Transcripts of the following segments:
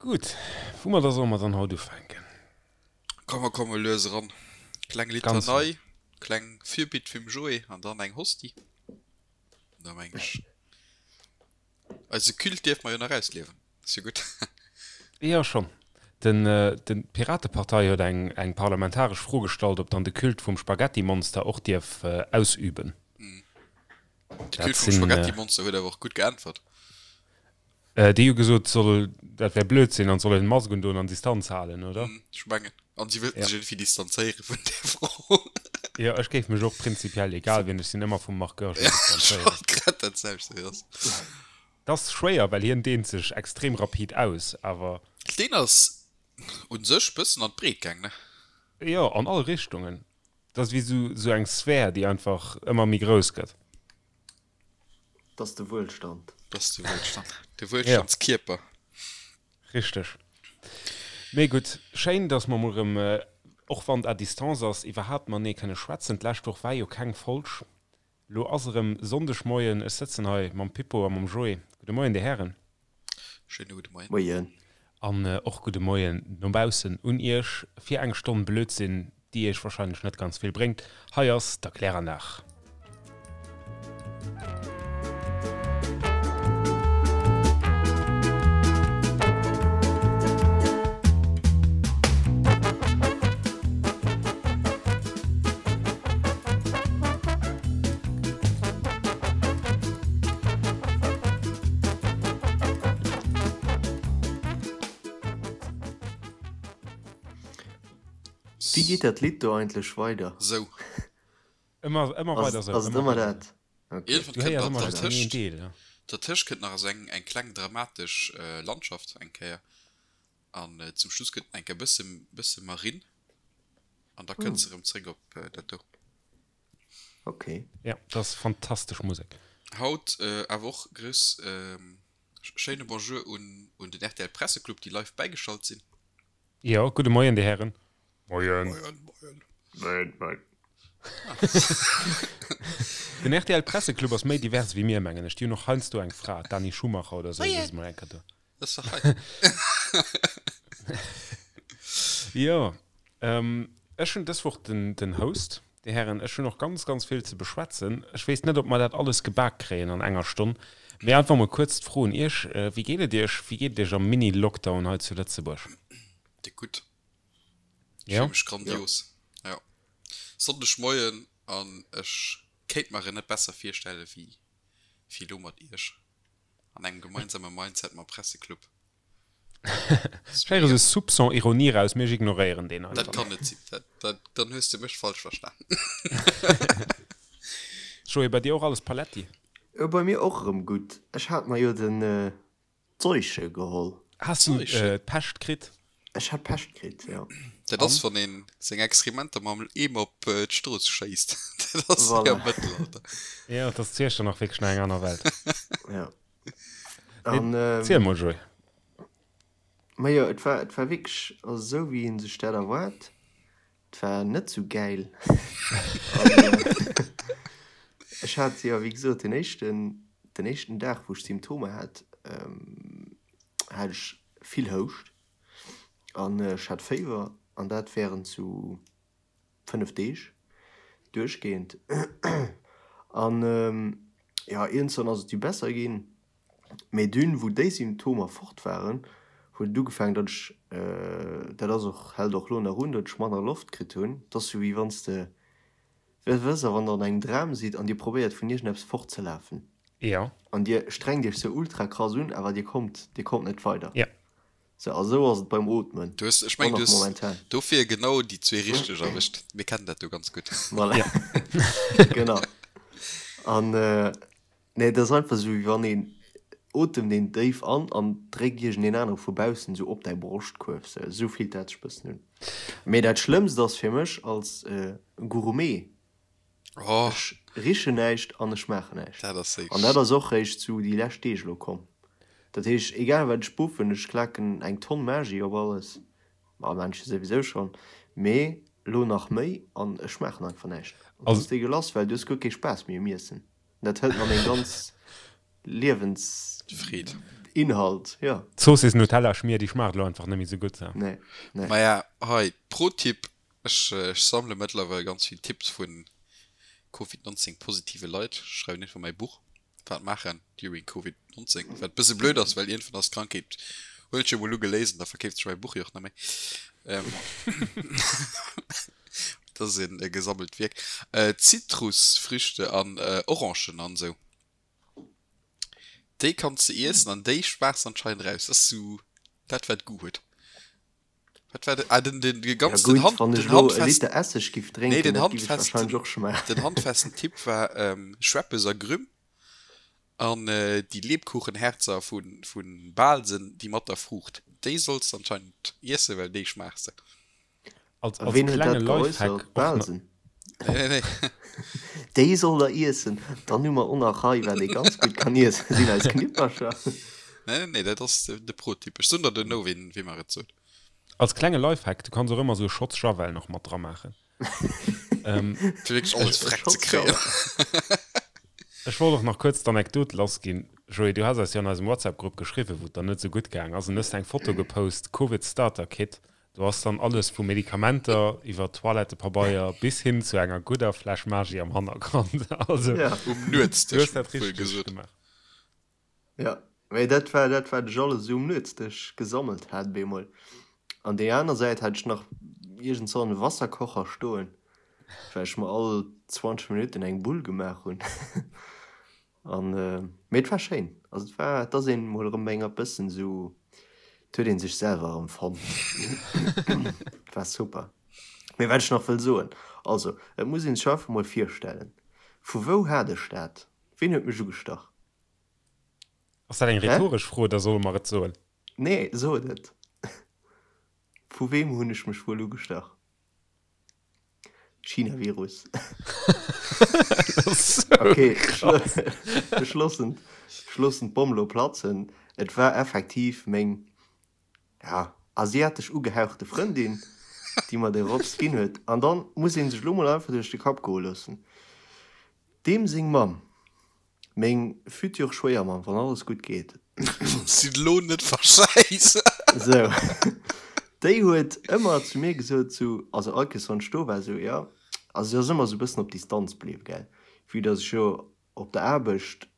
Gutt, woumadder solle mer dann haut ufänken? Komm, mer komme lues eran. Kleng Litanei, kleng Fürbitt vum Joé an dann eng Hostie. Da meng ech, eise Culte dierfe mer jo nach ausliewen. Ass jo gutt. Jo, schonn. Den, den, d'Piratepartei huet eng, eng parlamentaresch Fro gestallt, ob dann de Culte vum Spaghettimonster och dierf ausüben. De Culte vum Spaghettimonster huet awer och gutt geäntwert. Déi hu gesot, soll, dat wär Blödsinn an soll een Mask undoen an Distanz halen, oder? Ech mengen. An si wëllten sech iergendwéi distanzéiere vun där Fro. Jo, ech géif mech och prinzipiell, egal wien ech sinn, ëmmer vum Marc Goergen distanzéieren. Ech wollt grad dat selwecht soen, ass. Dat ass schwéier, well hien deent sech extrem rapid aus, awer. Deen ass u sech bëssen an d'Breet gaang, ne? Jo, an all Richtungen. Dat ass wéi sou eng Sphär, déi einfach ëmmer méi grouss gëtt. Dat ass de Wuelstand. Dat ass de Wuelstand. De Wuelstandskierper. Richteg. Mee gutt, schéin, dass mer mol erëm, och wann et à distance ass, iwwerhaapt matenee kënne schwätzen. D'lescht Woch war jo keng Folg. Lo ass erëm Sonndegmoien. Ech sëtzen hei mam Pippo a mam Joé. Gudde Moien, Dir Hären. Schéine gudde Moien. Moien. An och gudde Moien no baussen un Iech fir eng Stonn Blödsinn, déi Iech wahrscheinlech net ganz vill bréngt. Hei ass d'Erkläranlag. Wéi geet dat Lidd do eigentlech weider? Sou. Ëmmer, ëmmer weider sou. Ass et ëmmer dat? Okay. Iergendwann Du kënnt héiers nach ëmmer just dertëscht, een Deel, ja. dertëscht kënnt nach esou eng, eng kleng dramatesch Landschaft eng Kéier. An zum Schluss kënnt eng Kéier bësse, bësse Marinn. An da kënnt se erëm zréck op dat do. Ok. Ja, dat ass fantastesch Musek. Haut awer och grouss schéine Bonjour un un den rtl Presseclub déi live bäigeschalt sinn. Jo, gudde Moien dir Hären. Moien. Moien, moien. Moien, moien. Den rtl Presseclub ass méi divers wéi mir, mengen ech. Déi hunn och heiansdo eng Fra, d'Dani Schumacher oder esou, déi ass mol eng Kéier do. Dat ass dach hei. Jo, ech hunn dës Woch den den Host. Dir Hären, ech hunn och ganz, ganz vill ze beschwätzen. Ech weess net, ob mer dat alles gebak kréien an enger Stonn. Mee einfach mol kuerz d'Fro un Iech, Wéi geet et Iech? Wéi geet et Iech am Mini-Lockdown hei zu Lëtzebuerg? Déck gutt. Ech fille mech grandios. Jo. Sonndegmoien an ech kéint mer en net besser virstelle wéi wéi elo mat Iech an engem gemeinsame Mindset mam Presseclub. Ech héiere sou Soupçon Ironie raus, mee ech ignoréieren deen einfach. Dat kann net sinn. Dat, dat, dann hues de mech falsch verstanen. Joé, bei dir och alles paletti? Jo, bei mir och erëm gutt. Ech hat mer jo den Seuche geholl. Has du d'Pescht kritt? Ech hat d'Pescht kritt, jo. Dat ass, wann een seng Exkrementer mam Eemer op d'Strooss schéisst. Dat ass wéi am Mëttelalter. Jo, dat ass zu Iechternach wierklech nach eng aner Welt. Jo. An, Ziel mol, Joé. Majo, et war, et war wierklech, also esou wéi ee sech dat erwaart. Et war net sou gäil. An ech hat jo, wéi gesot, den éischten, den éischten Dag, wou ech Symptomer hat, hat ech vill Houscht an ech hat Féiwer an dat wärend sou 5 Deeg duerchgehend an jo iergendzwann ass et du besser ginn, mee dunn wou déi Symptomer fort waren huet et ugefaangen datt ech, dat ass och hält och lo nach un, datt ech manner Loft kritt hunn. Et ass sou wéi wann s de, wësst der wann der an engem Dram sidd an dir probéiert vun iergendeppes fortzelafen Jo. an dir strengt iech sou ultra krass un awer dir kommt dir kommt net weider. Jo. Sou, a sou ass et beim Ootmen Du hues, ech mengen, du hues dofir genau déi zwee richteg erwëscht. Mir kennen dat jo ganz gutt. Voilà. Ja. Genau. An nee, et ass einfach sou, wéi wann een otemt een déif an an dréckt iergendeen anere vu baussen sou op däi Broschtkuerf. Sou, sou fillt dat sech bëssen un. Mee dat Schlëmmst ass fir mech als Gourmet, Oh. Ech richen näischt an ech schmaachen näischt. Dat ass An dat ass och réischt sou déi lescht Deeg elo komm. Dat heescht, egal wat ech buffen, ech klaken eng Tonn Maggi op alles, ma Männche souwisou schonn, mee elo nach méi, an ech schmaachen einfach näischt. An dat ass deegelass, well du hues guer kee Spaass méi um Iessen. Dat hëlt mer meng ganz Liewens. Freed. Inhalt, jo. D'Zoossiss Nutella Schmier, déi schmaacht elo einfach net méi sou gutt. Nee, nee. Maja, hei, Pro-Tipp, Ech sammele mëttlerweil ganz vill Tipps vu Covid 19 positive Leit. Ech schreiwen iergendwann mäi Buch, Wat maachen during Covid 19, wat e bësse blöd ass, well iergendwann ass d'Krankheet, hunn ech jo mol ugeléist an da verkeeft sech mäi Buch jo och net méi. Dat ass e gesammelt Wierk. Zitrusfrüchte an Orangen an esou, déi kanns de iessen an déi schmaachs anscheinend raus. Dat ass sou dat wat Goût huet. Wat war den, ah, den, den, den ganz, ja, den gutt, Hand, wann ech den elo e handfesten, Liter Esseg giff nee, drénken, den dat giff ech handfesten, wahrscheinlech och schmaachen. den handfesten Tipp war ähm, Schweppes a Grüm an äh, déi Lebkuchenherzer vun, vun Bahlsen, déi mat der Fruucht. Déi solls de anscheinend iessen, well déi schmaachs de. Als, A als ween huet klenge dat Lifehack geäussert? och na. Bahlsen? Nee, nee, nee. Déi soll der iessen. Dann hu mer och nach hei, wat ee ganz gutt kann iessen, sinn eis Knippercher. Nee, nee, nee, dat ass de, de Pro-Tipp. Ech soen der duerno, ween, wee mer et sot. Als klenge Lifehack, du kanns och ëmmer sou e Schotz Javel nach mat dra maachen. Fir wierklech alles E freck ze Schotz kréien. Javel. Ech wollt och nach kuerz d'Anekdot lassginn. Joé, du has eis jo an eisem WhatsApp-Grupp geschriwwen, wou et der net sou gutt gaang ass, an hues eng Foto gepost, Covid Starter Kit. Do ass dann alles vu Medikamenter iwwer Toilettepabeier bis hin zu enger gudder Fläsch Maggi am Hannergrond. Also, Ja. Um du Nuetsdësch, hues dat wuel richteg gesot. gemaach. Ja, mee dat war dat wat ech alles esou um Nuetsdësch gesammelt hat bemol. An déi aner Säit hat ech nach iergend so en Wasserkocher stoen, well ech mer all 20 Minutten eng Bull gemaach hunn. An mee et war schéin. Also et war, et ass een mol erëm enger bëssen esou, et huet een sech selwer erëm fonnt. Et war super. Mee wat ech nach wëll soen, also et muss een sech einfach mol virstellen, vu wou hat ech dat? Ween huet mech ugestach? Ass dat eng Hä? rhetoresch Fro oder solle mer et soen? Nee, sot et. Vu weem hunn ech mech wuel ugestach? China-Virus. Okay, ech loossen, ech loossen d'Bomm lo platzen. Et war effektiv meng, ja, asiatesch ugehauchte Frëndin, déi mer de Rotz ginn huet. An dann muss ee sech lo mol einfach duerch de Kapp goe loossen, deem seng Mamm Meng futur Schwéiermamm, wann alles gutt geet. Sinn lo net verschäiss. Sou. Déi huet ëmmer zu mir gesot, sou, also all Kéiers wann ech do war, sou, jo, also si ass ëmmer sou e bëssen op Distanz bliww, gell, vue dass ech jo op der Aarbecht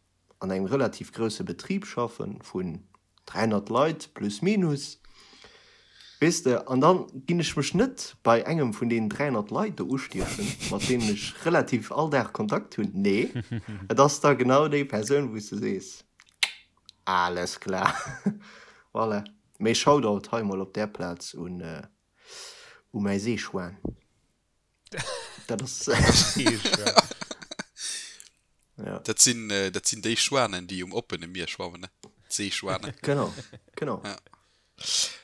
an engem relativ grousse Betrib schaffen vun 300 Leit plus minus, weess de, an dann ginn ech mech net bei engem vun deenen 300 Leit do ustiechen, mat deenen ech relativ all Dag Kontakt hunn. Nee, et ass da genau déi Persoun, wou s de sees, alles klar, voilà. Mee Shoutout hei mol op där Plaz un u mäi Seeschwan. Dat ass. Ja. Dat sinn, äh, dat sinn déi Schwanen, déi um oppene Mier schwammen, ne? D'Seeschwanen. Genau, genau. Ja.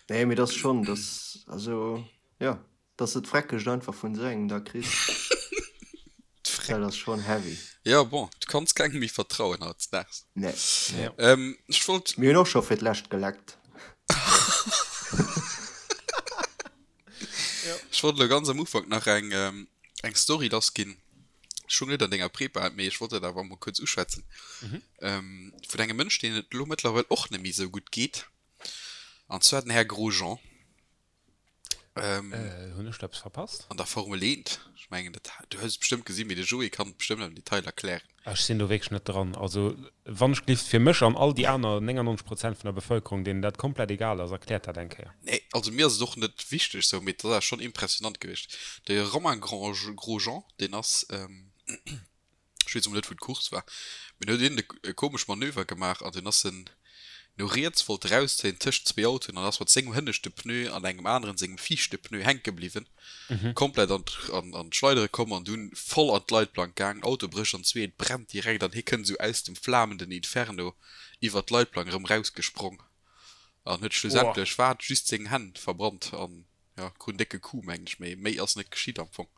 Nee, mee dat ass schonn, dat, also, ja, dass de d'Freckegt einfach vun esou engem da kriss, dat ass schonn heavy. Ja, bon, du kanns kengem méi vertrauen hautdesdaags. Nee, nee. Ähm, ech wollt. Mir hunn och scho fir d'lescht geleckt. Ech wollt elo ganz am Ufank nach eng, eng Story lassginn. Ech hunn net an denger Prepa, mee ech wollt dat awer emol kuerz uschwätzen. Mhm. Vun engem Mënsch, deen et elo mëttlerweil och net méi esou gutt geet. An zwar den Här Grosjean. Ähm, äh, hunn ech do eppes verpasst? An der Formel 1. Ech mengen, dat, du hues et bestëmmt gesinn, mee de Joé kann et bestëmmt am Detail erklären. Ech sinn do wierklech net dran. Also wann ech gelift, fir mech an all déi aner 99 Prozent vun der Bevëlkerung, deenen dat komplett egal ass, erkläert dat eng Kéier. Nee, also mir ass et och net wichteg sou, mee et ass awer schonn impressionant gewiescht. De Romain Grosjean, deen ass, ech weess emol net wou d'Course war, mee do huet een e komesch Manöver gemaach an dunn ass en no riets, wollt erauszéien tëscht zwee Autoen an ass mat sengem hënneschte Pneu an engem aneren sengem viischte Pneu hänke bliwwen. Komplett an an d'Schleidere komm an dunn voll an d'Leitplank gaang, Auto brécht an zwee, et brennt direkt an hie kënnt esou aus dem flamenden Inferno iwwert d'Leitplank erëm rausgesprong an huet schlussendlech wat just seng Hänn verbrannt an jo krut en décke Coup mengen ech, mee méi ass net geschitt am Fong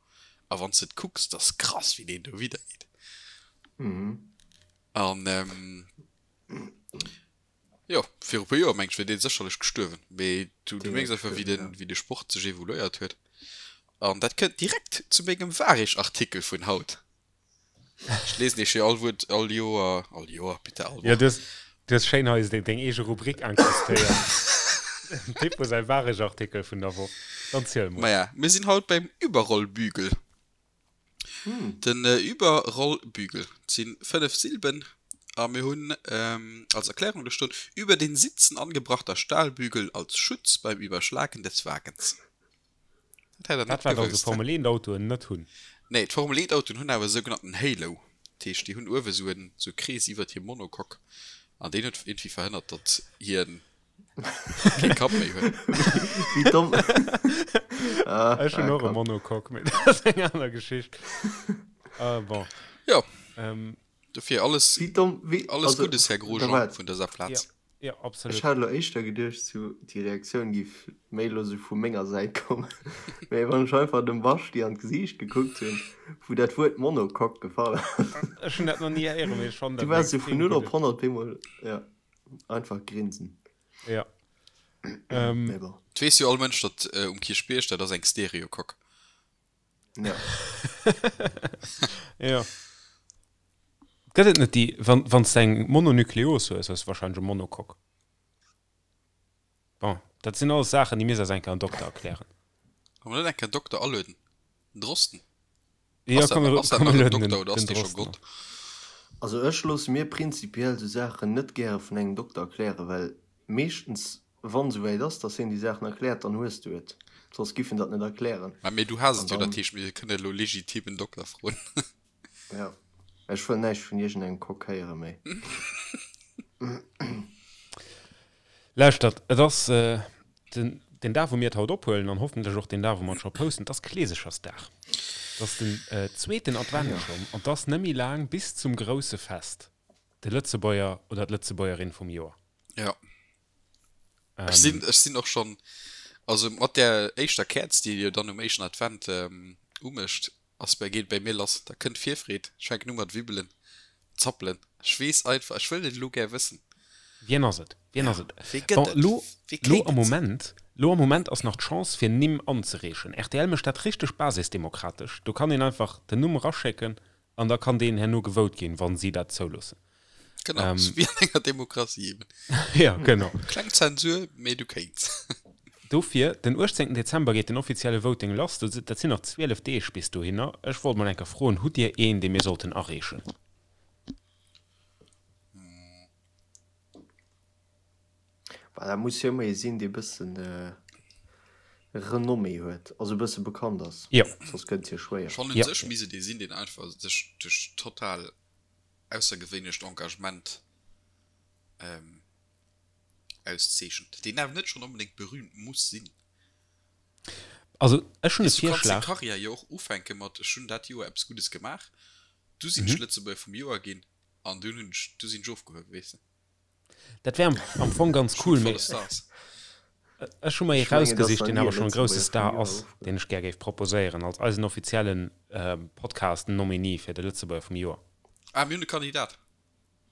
a wanns de et kucks, dat ass krass wéi deen do widder geet an. Jo, viru puer Joer meng ech wier dee sécherlech gestuerwen, mee du du mierks einfach wéi den wéi de Sport sech evoluéiert huet. An dat kënnt direkt zu mengem Wareg-Artikel vun haut. Ech liesen iech jo all Wuert all Joer, all Joer, bitte all Jo, Woch. du hues du Du hues schéin hei deng eege Rubrik incrustéiert. Dem Pippo säi Waregartikel vun der Woch. Dann ziel mol. Maja, mir sinn haut beim Überrollbügel. Den Überrollbügel, et si 5 Silben a mir hunn als Erklärung do stoen, Über den Sitzen angebrachter Stahlbügel als Schutz beim Überschlagen des Wagens. Dat hätt der net Dat wat also gewusst, hä? Formel 1 Autoen net hunn. Nee, d'Formel 1 Autoen hunn awer e sougenannten Halo. Dat heescht, déi hunn uewe sou en sou e Krees iwwert hir Monocoque an deen huet iergendwéi verhënnert, datt hien kee Kapp méi huet. Wéi domm. Ah, Ech hunn ah, och e Kapp. Monocoque, mee dat ass eng aner Geschicht. Ah, bon. Jo, Ähm, dofir alles, Wéi domm, wéi, alles also, Guddes, Här da Grosjean, waart. vun dëser Plaz. Ja. Ja, absolut. Ech hat elo éischter geduecht, sou déi Reaktioun giff méi elo sou vu menger Säit kommen. Mee wann ech einfach dem Baschti an d'Gesiicht gekuckt hunn, wou dat Wuert Monocoque gefall ass. Ech hunn dat nach ni héieren, mee ech fannen Du dat en waars sou vun extrem 0 op gudde. 100 op eemol, ja, einfach grinsen. Ja. Ähm. Mee bon. Et weess jo all Mënsch, datt um Kierchbierg, dat ass eng Stereocoque. Ja. Ja. Gëtt et net déi, wann, wann s de eng Mononukleos hues, hues de wahrscheinlech e Monocoque. Bon, dat sinn alles Saachen, déi misst eis eng Kéier en Dokter erklären. Kann mer net eng Kéier en Dokter alueden? Den Drosten? Ja, Ass dat komm, nach, ass dat komm, nach mir en lueden den, Dokter oder ass den dee scho Drosten Gott? an. Also ech loosse mir prinzipiell sou Saachen net gäre vun engem Dokter erklären, well meeschtens Wann esouwäit ass, dass hien déi Saachen erkläert, dann hues du et. Soss giff en dat net erklären. Mä mee du has An et jo, dat dann. heescht mir kënne elo legitim en Dokter froen. Jo. Ech wëll näischt vun iergendengem Coq héiere méi. Lauschtert, et ass den den Dag wou mir et haut ophuelen an hoffentlech och den Dag wou mer et scho posten, et ass Kleesechersdag. Et ass den zweeten Advent schonn an et ass net méi laang bis zum grousse Fest, de Lëtzebuerger oder d'Lëtzebuergerin vum Joer. Jo. Ech sinn, ech sinn och schonn, also mat där éischter Käerz, déi jo dann um éischten Advent umécht, ass bei, geet bei mir lass. Da kënnt d'Virfreed, ech fänken u mat wibbelen, zappelen. Ech weess einfach, ech wëll et elo gär wëssen. Wien ass et? Wien ass et? Wee gëtt Bon, et? lo, Wee lo kéint am et sinn? Moment, lo am Moment ass nach d'Chance fir Nimm anzereechen. Rtl mécht dat richteg basisdemokratesch. Do kann een einfach den Numm eraschécken An da kann deen herno gevote ginn, wann si dat zouloossen. Genau, ähm, wéi an enger Demokratie eben. Ja, genau. Kleng Zensur, mee du kéints. Dofir, den 18 Dezember geet den offizielle Voting lass. Dat sinn nach 12 Deeg bis dohinner. Ech wollt mol eng Kéier froen, Hutt Dir een, dee mir sollten areechen? Bah, dat muss jo ëmmer ee sinn, dee bëssen Renommée huet, also e bësse bekannt ass. Jo. Soss gëtt et jo schwéier. Schonn un sech misst et ee sinn, deen einfach sech duerch total aussergewéinlecht Engagement auszeechent, deen awer net schonn onbedéngt berühmt muss sinn. Also ech hunn e Weess, du kanns deng Virschlag. Karriär jo och ufänke mat ech hunn dat Joer eppes Guddes gemaach, du sinn ech Lëtzebuerger vum Joer ginn an dunn hunn ech, du sinn ech ofgehuewen, weess de. Dat wär am Fong ganz cool, mee ech hu mer ee rausgesicht, deen awer schonn e grousse Star ass, deen ech gär géif proposéieren als eisen offiziellen Podcast-Nominee fir de Lëtzebuerger vum Joer. Ah, mir hunn e Kandidat?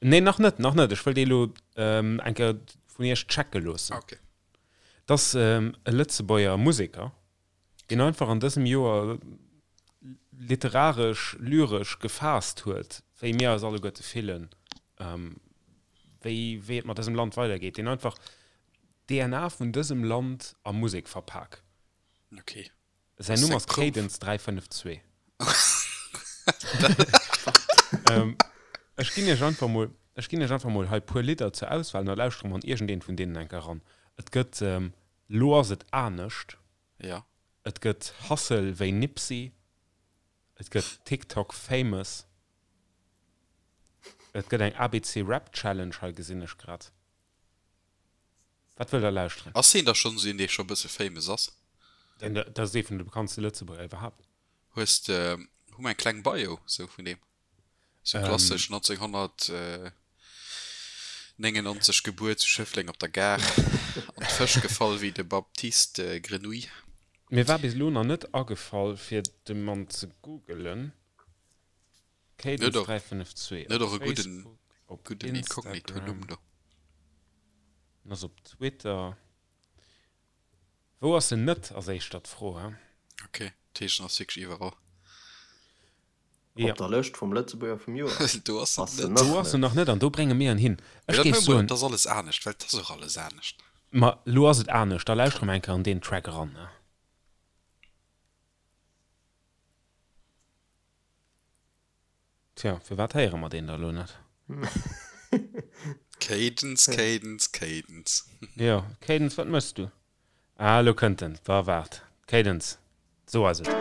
Nee, nach net, nach net. Ech wëll dee elo eng Kéier vun iech checke loossen. Ah, okay. Et ass e Lëtzebuerger Museker, deen einfach an dësem Joer literaresch, lyresch gefaasst huet, wéi mir eis alleguerte fillen, wéi, wéi et mat dësem Land weidergeet, deen einfach d'DNA vun dësem Land a Musek verpak. Okay. Säin Numm ass Cadence 352. Ech ginn iech einfach mol, ech ginn iech einfach mol hei puer Lidder zur Auswahl an da lauschtere mer an iergendeent vun deenen enker eran. Et gëtt Lo ass et anescht. Ja. Et gëtt Hustle wéi Nipsey. Et gëtt TikTok famous. Et gëtt eng ABC Rap Challenge, hei gesinn ech grad. Wat wëllt der lauschteren? Ass heen da schonn esou een, dee scho e bësse famous ass? Deen, dat ass ee vun de bekanntste Lëtzebuerger iwwerhaapt. Hues de, hu mer eng kleng Bio sou vun deem? Sou klassesch 1999 gebuer zu Schëffleng op der Gare, an d'Fësch gefall wéi de Baptiste Grenouille. Mir war bis elo nach net agefall fir de Mann ze googelen. Cadence 352 op Facebook, op Instagram, en ass op Twitter. Wou ass en net, ass éischter d'Fro, he? Ok, dat heescht en ass wierklech iwwerall. Op der Lëscht vum Lëtzebuerger vum Joer Do ass ass en en net. nach Do ass en net. nach net an do brénge mir en hin. Mee Ech dat géif maache mer, soen. et ass alles anescht, well et ass och alles anescht. Ma lo ass et anescht, da lauschtere mer eng Kéier an deen Track eran, ne? Tja, firwat héiere mer deen da lo net? Cadence, Cadence, Cadence. Jo, Cadence, wat méchs du? Ah, elo kënnt en. Wa waart. Cadence, sou ass et.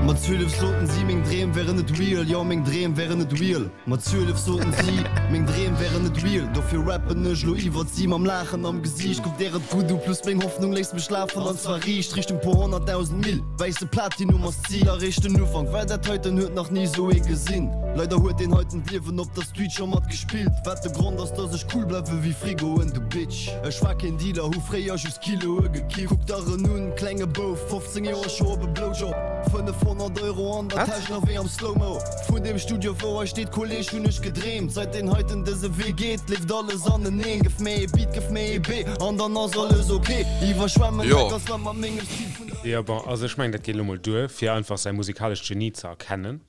Mat 12 soten si, meng Dreem wären net real, jo meng Dreem wären net real. Mat 12 soten si, meng Dreem wären net real, dofir rappen ech lo iwwert si mam Laachen am Gesiicht. Kuck der et gutt u, plus meng Hoffnung léisst mech lafen an zwar riicht Richtung puer honnertdausend Mille. Wäisse Platinum ass d'Zil, eréischt den Ufank, well dat heiten huet nach ni sou ee gesinn. Leider huet deen heiten d'Liewen op der Street scho mat gespillt, wat de Grond ass, dass ech cool bleiwe wéi Frigoen, du Bitch. Ech war keen Dealer, hu fréier just Kiloe gekifft. Kuck der en un, klenge Bouf, 15 Joer scho op e Blowjob, 500 Euro an der Täsch, nach wéi am Slow-Mo. Vun deem Studio wou hei steet, Kolleg, hunn ech gedreemt. Seit deen heiten dëse Wee geet, leeft alles aneneen. Gëff mir ee Beat, gëff mir ee B, an dann ass alles ok. Iwwerschwemmen Jo. dat ganzt Land mat mengem Stil vun. Jo, bon, also ech mengen, dat geet elo mol duer, fir einfach säi musikalescht Genie ze erkennen.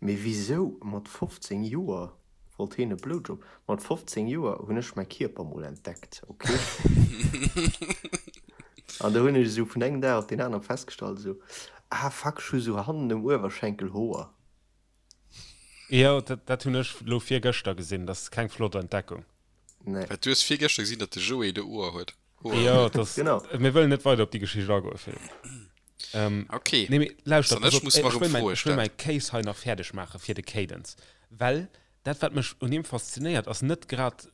Mee wisou mat 15 Joer wollt heen e Blowjob? Mat 15 Joer hunn ech mäi Kierper mol entdeckt, ok? An do hunn ech esou vun engem Dag op deen anere festgestallt esou, ah fuck, ech hu sou hannen um Uewerschenkel Hoer. Jo, dat hunn ech lo virgëschter gesinn, dat ass keng flott Entdeckung. Nee. Wat, du hues virgëschter gesinn, datt de Joé de Hoer huet? Jo, dat, Genau. mir wëllen net weider op déi Geschicht agoen, Philippe. Ähm, okay. Nee, mee lauschtert, Dann pass ech op, muss ech mer wëll mäin, Froe ech wëll stellen. mäi Case hei nach fäerdeg maache fir de Cadence. Well dat, wat mech un him faszinéiert, ass net grad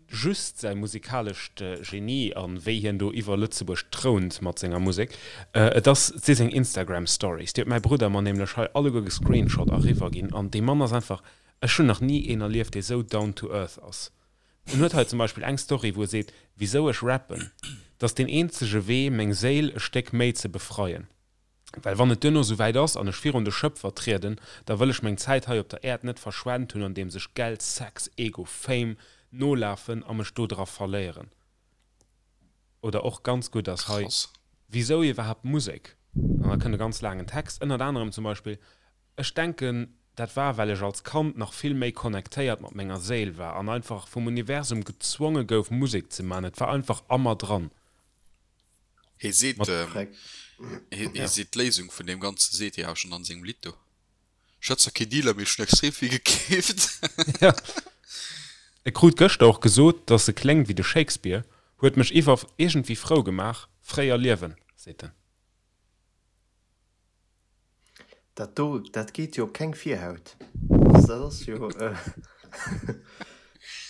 just säi musikalescht Genie a wéi hien do iwwer Lëtzebuerg trount mat senger Musek. Et ass, et si seng Instagram Stories. Déi huet mäi Brudder mer nämlech hei alleguer gescreenshot a riwwer ginn. An dee Mann ass einfach, ech hunn nach ni een erlieft, dee sou down to earth ass. En huet hei zum Beispill eng Story, wou e seet, Wisou ech rappen? 't ass deen eenzege Wee, meng Séil e Stéck méi ze befreien. Well wann et duerno sou wäit ass an ech virun de Schëpfer trieden, da wëll ech meng Zäit hei op der Äerd net verschwent hunn, andeems ech Geld, Sex, Ego, Fame nolafen a mech do dra verléieren. Oder och ganz gutt ass hei, Krass. Wisou iwwerhaapt Musek? An da kënnt e ganz laangen Text, ënnert anerem zum Beispill, Ech denken, dat war, well ech als Kand nach vill méi connectéiert mat menger Séil war an einfach vum Universum gezwonge gouf, Musek ze man. Et war einfach a mer dran. Hie seet, Mat. hie Ja. seet d'Léisung vun deem Ganze seet hie awer schonn an sengem Lidd do. Ech hat zwar kee Dealer, mee ech hunn extrem vill gekeeft. Ja. E krut gëschter och gesot, dass e kléngt wéi de Shakespeare. Huet mech iwwer iergendwéi frou gemaach. Fréier liewen, seet en. Dat do, dat geet jo op keng Virhaut. Also dat ass jo,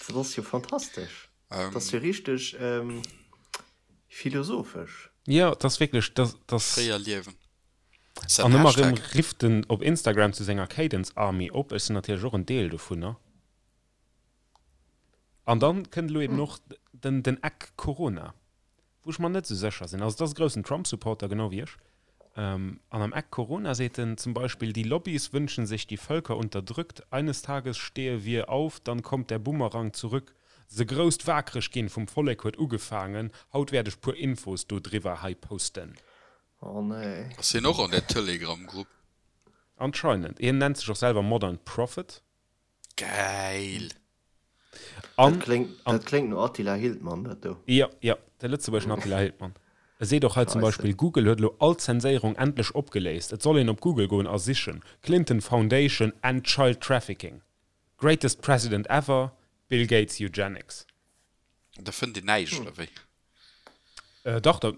dat ass jo fantastesch. Dat ass jo richteg philosophesch. Jo, et ass wierklech, dat ass. Fréier liewen. Ass dat An en ëmmer erëm Hashtag? rifft en op Instagram zu senger Cadence Army op. Ech sinn natierlech och en Deel dovunner. An dann kënnt elo eben och den, den Eck Corona. Wou ech mer net esou sécher sinn. Also et ass e groussen Trump-Supporter, genau wéi ech. An am Eck Corona seet en zum Beispill, Die Lobbys wünschen sich die Völker unterdrückt, eines Tages stehe wir auf, dann kommt der Bumerang zurück. Se grousst waakreg ginn vum Vollek huet ugefaangen, haut wäert ech puer Infos do driwwer hei posten. Oh nee. Ass hien och an där Telegram-Grupp? Anscheinend. Hien nennt sech och selwer Modern Prophet. Gäil! An, Dat kléngt, an, dat kléngt no Attila Hildmann, dat do. Jo, jo, de lëtzebuergeschen Attila Hildmann. E seet och hei zum Scheisse. Beispill, Google huet elo all Zenséierung endlech opgeléist. Et soll een op Google goen a sichen, Clinton Foundation and Child Trafficking. Greatest President ever, Bill Gates Eugenics. Da fënnt een näischt, oder wéi? Dach, da,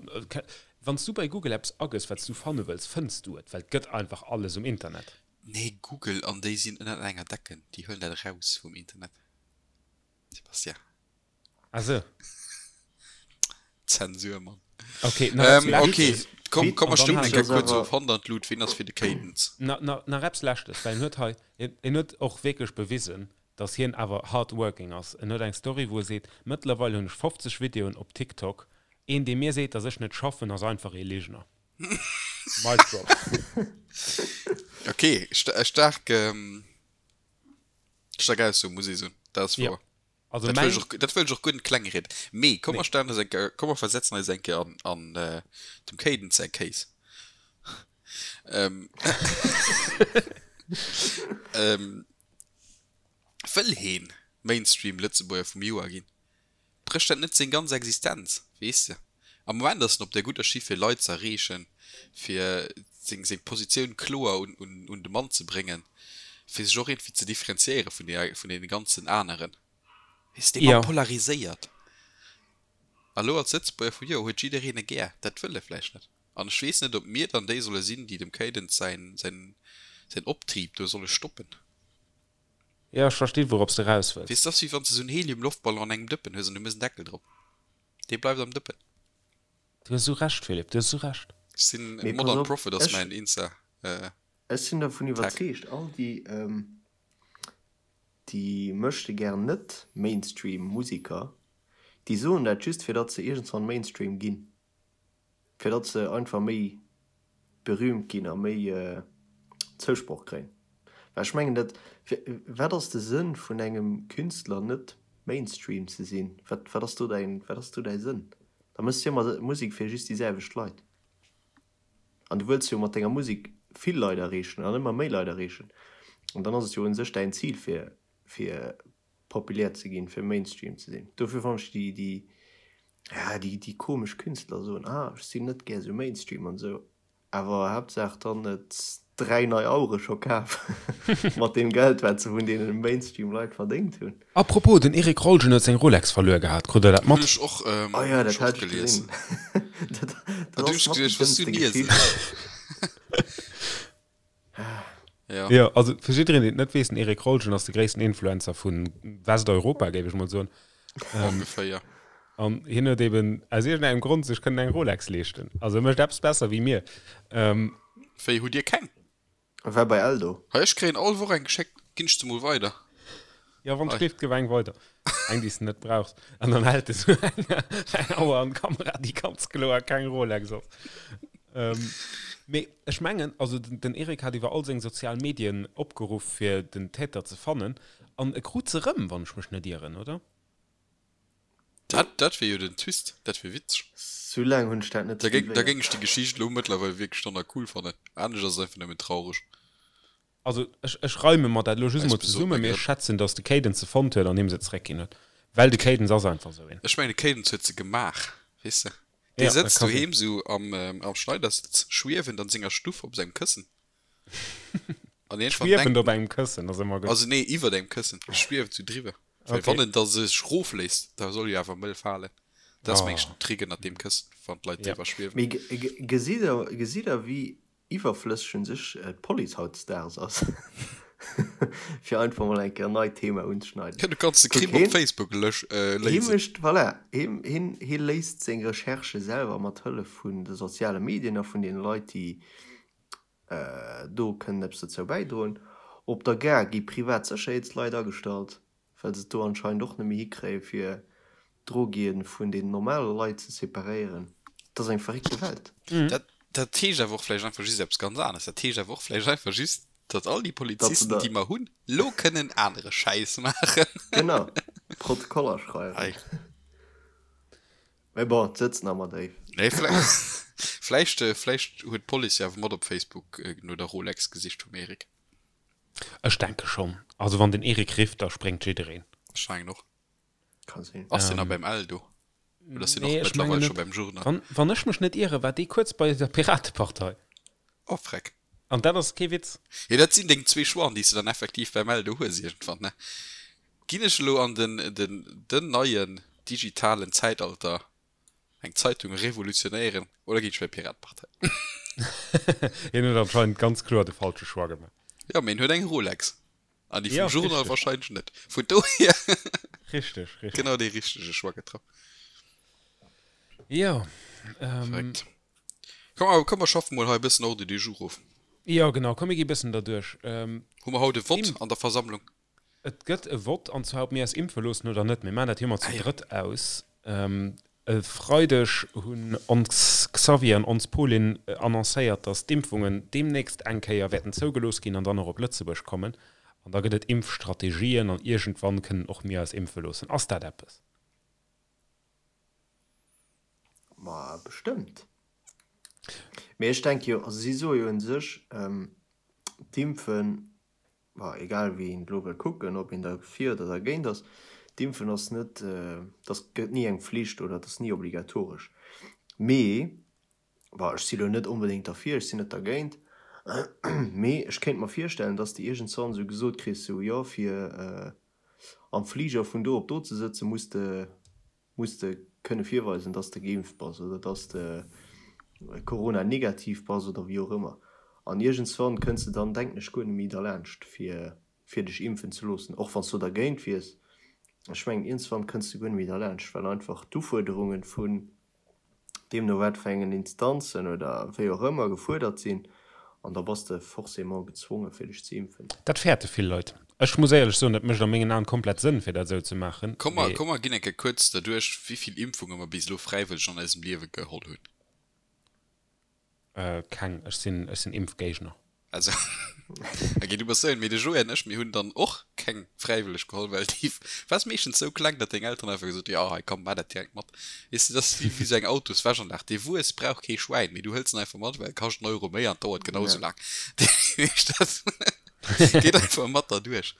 wann s du bei Google eppes agëss, wat s du fanne wëlls, fënns du et, well et gëtt einfach alles um Internet. Nee, Google an déi sinn ënnert enger Decken, déi huelen dat eraus vum Internet, Sebastian. Ah sou. Zensur, Mann. Ok, nach eppes Ähm, Leschtes. ok, komm, komm, mer An dann stëmmen halen eng Kéier ass kuerz awer of. Hand an d'Lut, ween ass fir de Cadence? Na, na, nach eppes Leschtes, well en huet hei, en, en huet och wierklech bewisen, dass hien awer hard working ass. En huet eng Story, wou e seet, Mëttlerweil hunn ech 50 Videoen op TikTok. Een, dee mir seet, dass ech net schaffen, ass einfach ee Ligner. Mic drop. Ok, sta staark, ähm, staark Ausso, muss ee soen. Dat ass Ja. wouer. Also Dat mäin. wëll ech och, dat wëll ech och guer net kleng rieden. Mee komm mer Nee. stellen eis eng Kéier, komm mer versetzen eis eng Kéier an, an dem Caden säi Case. Ähm, ähm, wëll heen Mainstream Lëtzebuerger vum Joer ginn? Brécht dat net seng ganz Existenz, weess de? Am Moment ass en op der gudder Schiff fir Leit z'erreechen, fir seng seng Positioun kloer un un un de Mann ze bréngen, fir sech och iergendwéi ze differenziéiere vun deer vun deene ganzen aneren. Weess de, dee Mann Jo. polariséiert. A lo als Lëtzebuerger vum Joer huet jiddereen e gär. Dat wëll e vläicht net. An ech weess net, ob mir dann déi solle sinn, déi dem Cadence säin säin säin Optrib do solle stoppen. Jo, ech verstinn, wourops de raus wëlls. Weess, dat ass wéi wann s de esou en Helium-Loftballon an engem Dëppen hues an du méchs en Deckel drop. Dee bleift am Dëppen. Du hues esou Recht, Philippe, du hues esou Recht. Ech sinn Mee pass Modern op, Prophet ass ech, mäin Insta ech sinn dervun Tag. iwwerzeegt, all déi, déi möchtegern net Mainstream Musiker, déi soen dat just fir datt se iergendswann Mainstream ginn. Fir datt se einfach méi berühmt ginn a méi Zousproch kréien. Well ech mengen dat, wat ass de Sënn vun engem Künstler net Mainstream ze sinn? Wat wat ass do däin, wat ass do däi Sënn? Da méchs de jo ëmmer Musek fir just déi selwecht Leit. An du wëlls jo mat denger Musek vill Leit erreechen an ëmmer méi Leit erreechen. An dann ass et jo un sech däin Zil fir fir populär ze ginn, fir Mainstream ze sinn. Dofir fannen ech déi, déi, ja, déi, déi komesch Künstler soen, ah, ech sinn net gär sou Mainstream an esou, awer Haaptsaach dann et 3 nei Auere scho kaf mat deem Geld, wat se vun deene Mainstream-Leit verdéngt hunn. Apropos, den Eric Rolgen huet seng Rolex verluer gehat, krut der dat Hunn mat? ech och, Oh ja, hunn dat ech och hat ech gelies. gesinn. Dat, An dat du ass hues mat déi geduecht, was du dëmmste liesen. Geschicht. Ja. Jo, also fir jiddereen, deen et net weess, den Eric Rolgen ass de gréissten Influencer vu Westeuropa, géif ech mol soen. Ongeféier. An hien huet eben aus iergendengem Grond sech kënnen eng Rolex leeschten. Also e mécht eppes besser wéi mir. Wéi, hutt Dir keng? War bei Eldo. Hei, ech kréien all Woch eng geschéckt, ginn ech se mol weider. Jo, wann Hei. d'Schléift, gëff eng weider. Eng, déi s de net brauchs. An dann hält e sou eng, eng Auer an d'Kamera, déi ganz kloer keng Rolex ass. Mee ech mengen, also den Eric hat iwwer all seng sozial Medien opgeruff, fir den Täter ze fannen. An e krut se erëm, wann ech mech net ieren, oder? Dat, dat wier jo den Twist, dat wier witzeg. Sou laang hunn ech dat net Da géing, da suivéiert. géing ech déi Geschicht elo mëttlerweil wierklech dann nach cool fannen. Anescht ass et einfach nëmmen traureg. Also ech, ech reime mer dat elo just Eis emol besoten zesummen, mee ech Grënn. schätzen, datt de Cadence se fonnt huet an him se zeréckginn huet. Well de Cadence ass einfach esou een. Ech mengen, de Cadence huet se gemaach, weess de. Dee Ja, dat sëtzt ka sinn. doheem sou am, am Schneidersitz, schwiewend an senger Stuff op sengem Këssen. An iergendwann Schwiewend denkt op engem Këssen ass ëmmer gutt. Also nee, iwwert engem Këssen, schwiewend sou driwwer. Well Okay. wann en da sech rofléisst, da soll jo awer mëll falen. Dat ass Oh. meng ech den Trick ënnert deem Këssen, wann d'Leit Ja. driwwer schwiewen. Mee gesitt der, gesitt der wéi iwwerflësseg un sech d'Police hautdesdaags ass, fir einfach mol eng Kéier en neit Thema unzeschneiden. Ja, du kanns de Kuck, Crime op heen, Facebook lösch, äh, hee léisen. mécht, voilà, heen, heen, hee léist seng Recherchë selwer mat Hëllef vun de soziale Medien a vun deene Leit, déi do kënnen eppes dozou bäidroen. Op der Gare gi privat Sécherheetsleit agestallt. Well se et do anscheinend och net méi hikréien, fir d'Drogie vun den normale Leit ze separéieren. Et ass eng verréckte Welt. Dat, dat heescht awer och vläicht einfach just eppes ganz aneres. Dat heescht awer och vläicht einfach just, datt all déi Datt se Polizisten, da. déi mer hunn, lo kënnen anere Schäiss maachen. Genau, Protokoller schreiwen. Ei. Mee bon, et sëtzt nach ëmmer déif. Nee, vläicht, vläicht, vläicht huet d'Police jo awer mat op Facebook no der Rolex gesicht vum Eric. Ech denke schonn. Also wann den Eric rifft, da spréngt jiddereen. Ech mengen och. Ka sinn. Ass deen nach beim Eldo? Oder ass deen och Nee, ech mengen mëttlerweil scho net. beim Journal? Wann, wann ech mech net iere, war dee kuerz bei der Piratepartei. Oh, freck. An dat ass kee Witz. Jo, dat sinn deng zwee Choixen, déi s de dann effektiv beim Eldo hues iergendwann, ne? Ginn ech elo an den, den, den neien digitalen Zäitalter Eng Zeitung revolutionéieren oder ginn ech bei d'Piratepartei? Hien huet anscheinend ganz kloer de falsche Choix gemaach. Jo, mee en huet eng Rolex. An déi vum Ja, Journal richteg. wahrscheinlech net. Vun dohier Richteg, richteg. genau dee richtege Choix getraff. Jo, ähm. Verréckt. Komm, awer komm mer schaffen mol hei e bëssen Ordre du jour of. Jo, genau, komm mir gi bëssen derduerch. Ähm, Hu mer haut e Vott Im. an der Versammlung? Et gëtt e Vott, an zwar ob mir eis impfe loossen oder net. Mir maachen dat jo ëmmer zu Ah jo. drëtt aus. E Freideg hunn ons Xavier an ons Pauline annoncéiert, datt d'Impfungen deemnächst eng Kéier wäerten zougelooss ginn an dann och op Lëtzebuerg kommen. An da gëtt et Impfstrategien an iergendwann kënnen och mir eis impfe loossen. Ass dat eppes? Ma bestëmmt. Mee ech denke jo, also si soe jo un sech, d'Impfen, ma egal wéi een et elo wëll kucken, ob een derfir oder dergéint ass, d'Impfen ass net, dat gëtt ni eng Flicht oder et ass ni obligatoresch. Mee, bon, ech si lo net onbedéngt derfir, ech sinn net dergéint, mee ech kéint mer virstellen, dass de iergendswann esou gesot kriss, sou, jo, fir am Fliger vun do op do ze sëtzen, muss de muss de kënne virweisen, dass de geimpft bass oder dass de Corona-negativ bass oder wéi och ëmmer. An iergendswann kënns de dann, denken ech, guer net méi derlaanscht, fir, fir dech impfen ze loossen, och wann s du dergéint wiers. Ech mengen, iergendswann kënns de guer net méi derlaanscht, well einfach d'Ufuerderunge vun deemno wat fir engen Instanzen oder wéi och ëmmer gefuerdert sinn, an da bass de forcément gezwongen, fir dech ze impfen. Dat fäerte vill Leit. Ech muss éierlech soen, et mécht a mengen Aen komplett Sënn, fir dat esou ze maachen, Komm mer, mee. komm mer ginn eng Kéier kuerz derduerch, wéi vill Impfunge mer bis elo fräiwëlleg an eisem Liewe geholl hunn. Keng. Ech sinn, ech sinn Impfgéigner. Also, ok, du bass esou een, mee de Joé an ech, mir hunn dann och keng fräiwëlleg geholl, well déi war meeschtens esou kleng, datt deng Elteren einfach gesot hunn, jo hei komm, maach dat direkt mat. Weess de, dat ass wéi esou eng Autoswäschanlag, dee Wuess brauch kee Schwäin, mee du hëls en einfach mat, well e kascht en Euro méi an dauert genau esou laang. Dat geet einfach mat derduerch.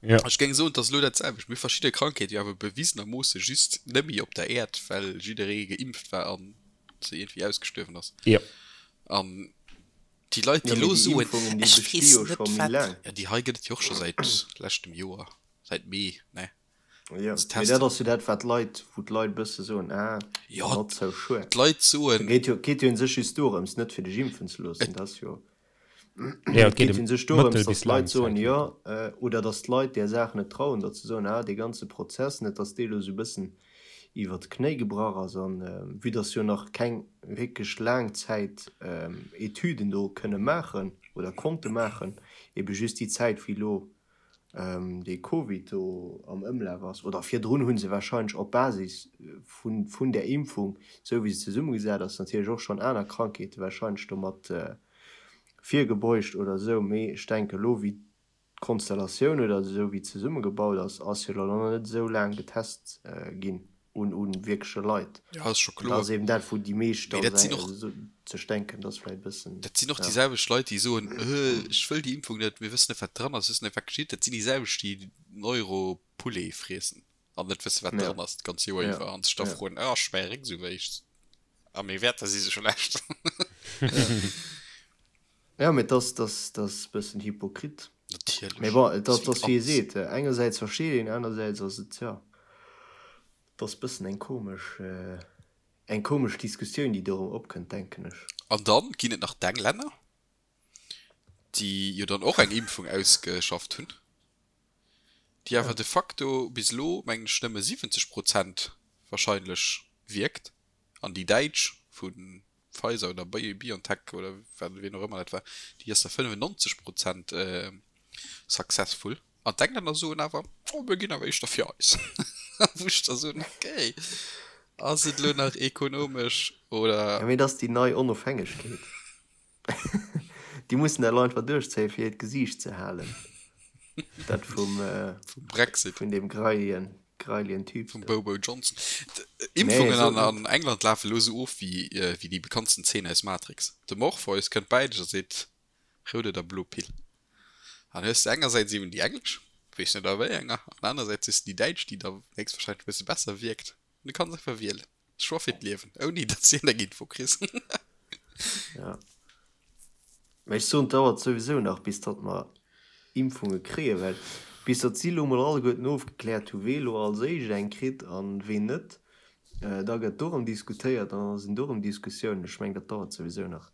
Ech géing soen, et ass elo dat selwecht. Mir hu verschidde Krankheete jo awer bewisenermoosse just nëmme op der Äerd, well jidderee geimpft war an se iergendwéi ausgestuerwen ass. An Déi Leit, déi elo soen, ech weess net wat, jo déi hei gëtt et jo och scho säit leschtem Joer, säit Mee, ne? Jo, mee dat ass jo dat wat d'Leit, wou d'Leit bësse soen, ah, not so sure. D'Leit soen. Et geet jo, geet jo un sech just dorëms, net fir dech impfen ze loossen, dat ass jo, et geet jo un sech dorëms, datt d'Leit soen, jo, oder datt d'Leit där Saach net trauen, datt se soen, ah, dee ganze Prozess, net datt dee elo esou bëssen iwwer d'Knéi gebrach ass an vue dass jo nach keng wierklech laang Zäit Etüden do kënne maachen oder konnte maachen, ebe just déi Zäit wéi elo dee Covid do am Ëmlaf ass oder virdrun hu se warscheinlech op Basis vun där Impfung, esou wéi se zesummegesat ass, natierlech och schonn aner Krankheete warscheinlech domat virgebeugt oder esou, mee ech denke elo wéi D'Konstellatioun oder esou wéi zesummegebaut ass, ass jo elo nach net esou laang getest ginn un un wierkleche Leit. Ja, ass scho kloer. Dat ass eben dat wou déi meescht da sech denken, dat ass vläicht e bëssen. Dat sinn och déi selwecht Leit déi soen, ech wëll déi Impfung net, mir wëssen net wat dran ass, wëssen net wat geschitt. Dat sinn déi selwecht déi den Euro Poulet friessen an net wësse wat dran ass d'ganz Joer iwwer an sech da froen, ah ech mäi Réck esou wéi, a meng Wäerter si sech schlecht. Jo, mee dass, dass, dass e bëssen hypokrit. Natierlech. Mee bon, et ass, dass wéi ee seet, engersäits versteet een, anersäits ass et, jo, et ass bëssen eng komesch, eng komesch Diskussioun, déi dorëm opkënnt, denken ech. An dann ginn et nach d'Englänner, déi jo dann och eng Impfung ausgeschafft hunn, déi awer de facto bis elo, mengen ech, nëmme 70 Prozent wahrscheinlech wierkt, an déi däitsch vu Pfizer oder BioNTech oder wien och ëmmer dat war, déi ass da 95 Prozent successful. An d'Englänner soen awer, oh mir ginn awer éischter fir eis. Wou ech da soen, okay, ass et elo nach ekonomesch oder. Jo, mee dat ass déi nei Onofhängegkeet. Déi mussen dat elo einfach duerchzéien, fir hiert Gesiicht ze halen. Dat vum, Vum Brexit. Vun deem greilien, greilien Typ Vum Bobo Johnson. Impfungen an, an England lafen elo esou of wéi, wéi déi bekanntsten Zeen aus Matrix. De Morpheus kënnt bäi dech a seet, Rout oder blo Pill? An hues de engersäits eben déi englesch, weess net a wéi enger, an anersäits hues de déi däitsch, déi da héchstwahrscheinlech e bësse besser wierkt. An du kanns einfach wielen. Choix fir d'Liewen, ouni datt s de eng Info kriss. Ja. Mä ech soen, et dauert souwisou nach, bis datt mer Impfunge kréien, well bis datt si elo mol alleguerten ofgekläert hu wee elo als éischt eng kritt a ween net, da gëtt do erëm diskutéiert an da sinn do erëm Diskussiounen. Ech mengen, dat dauert souwisou nach.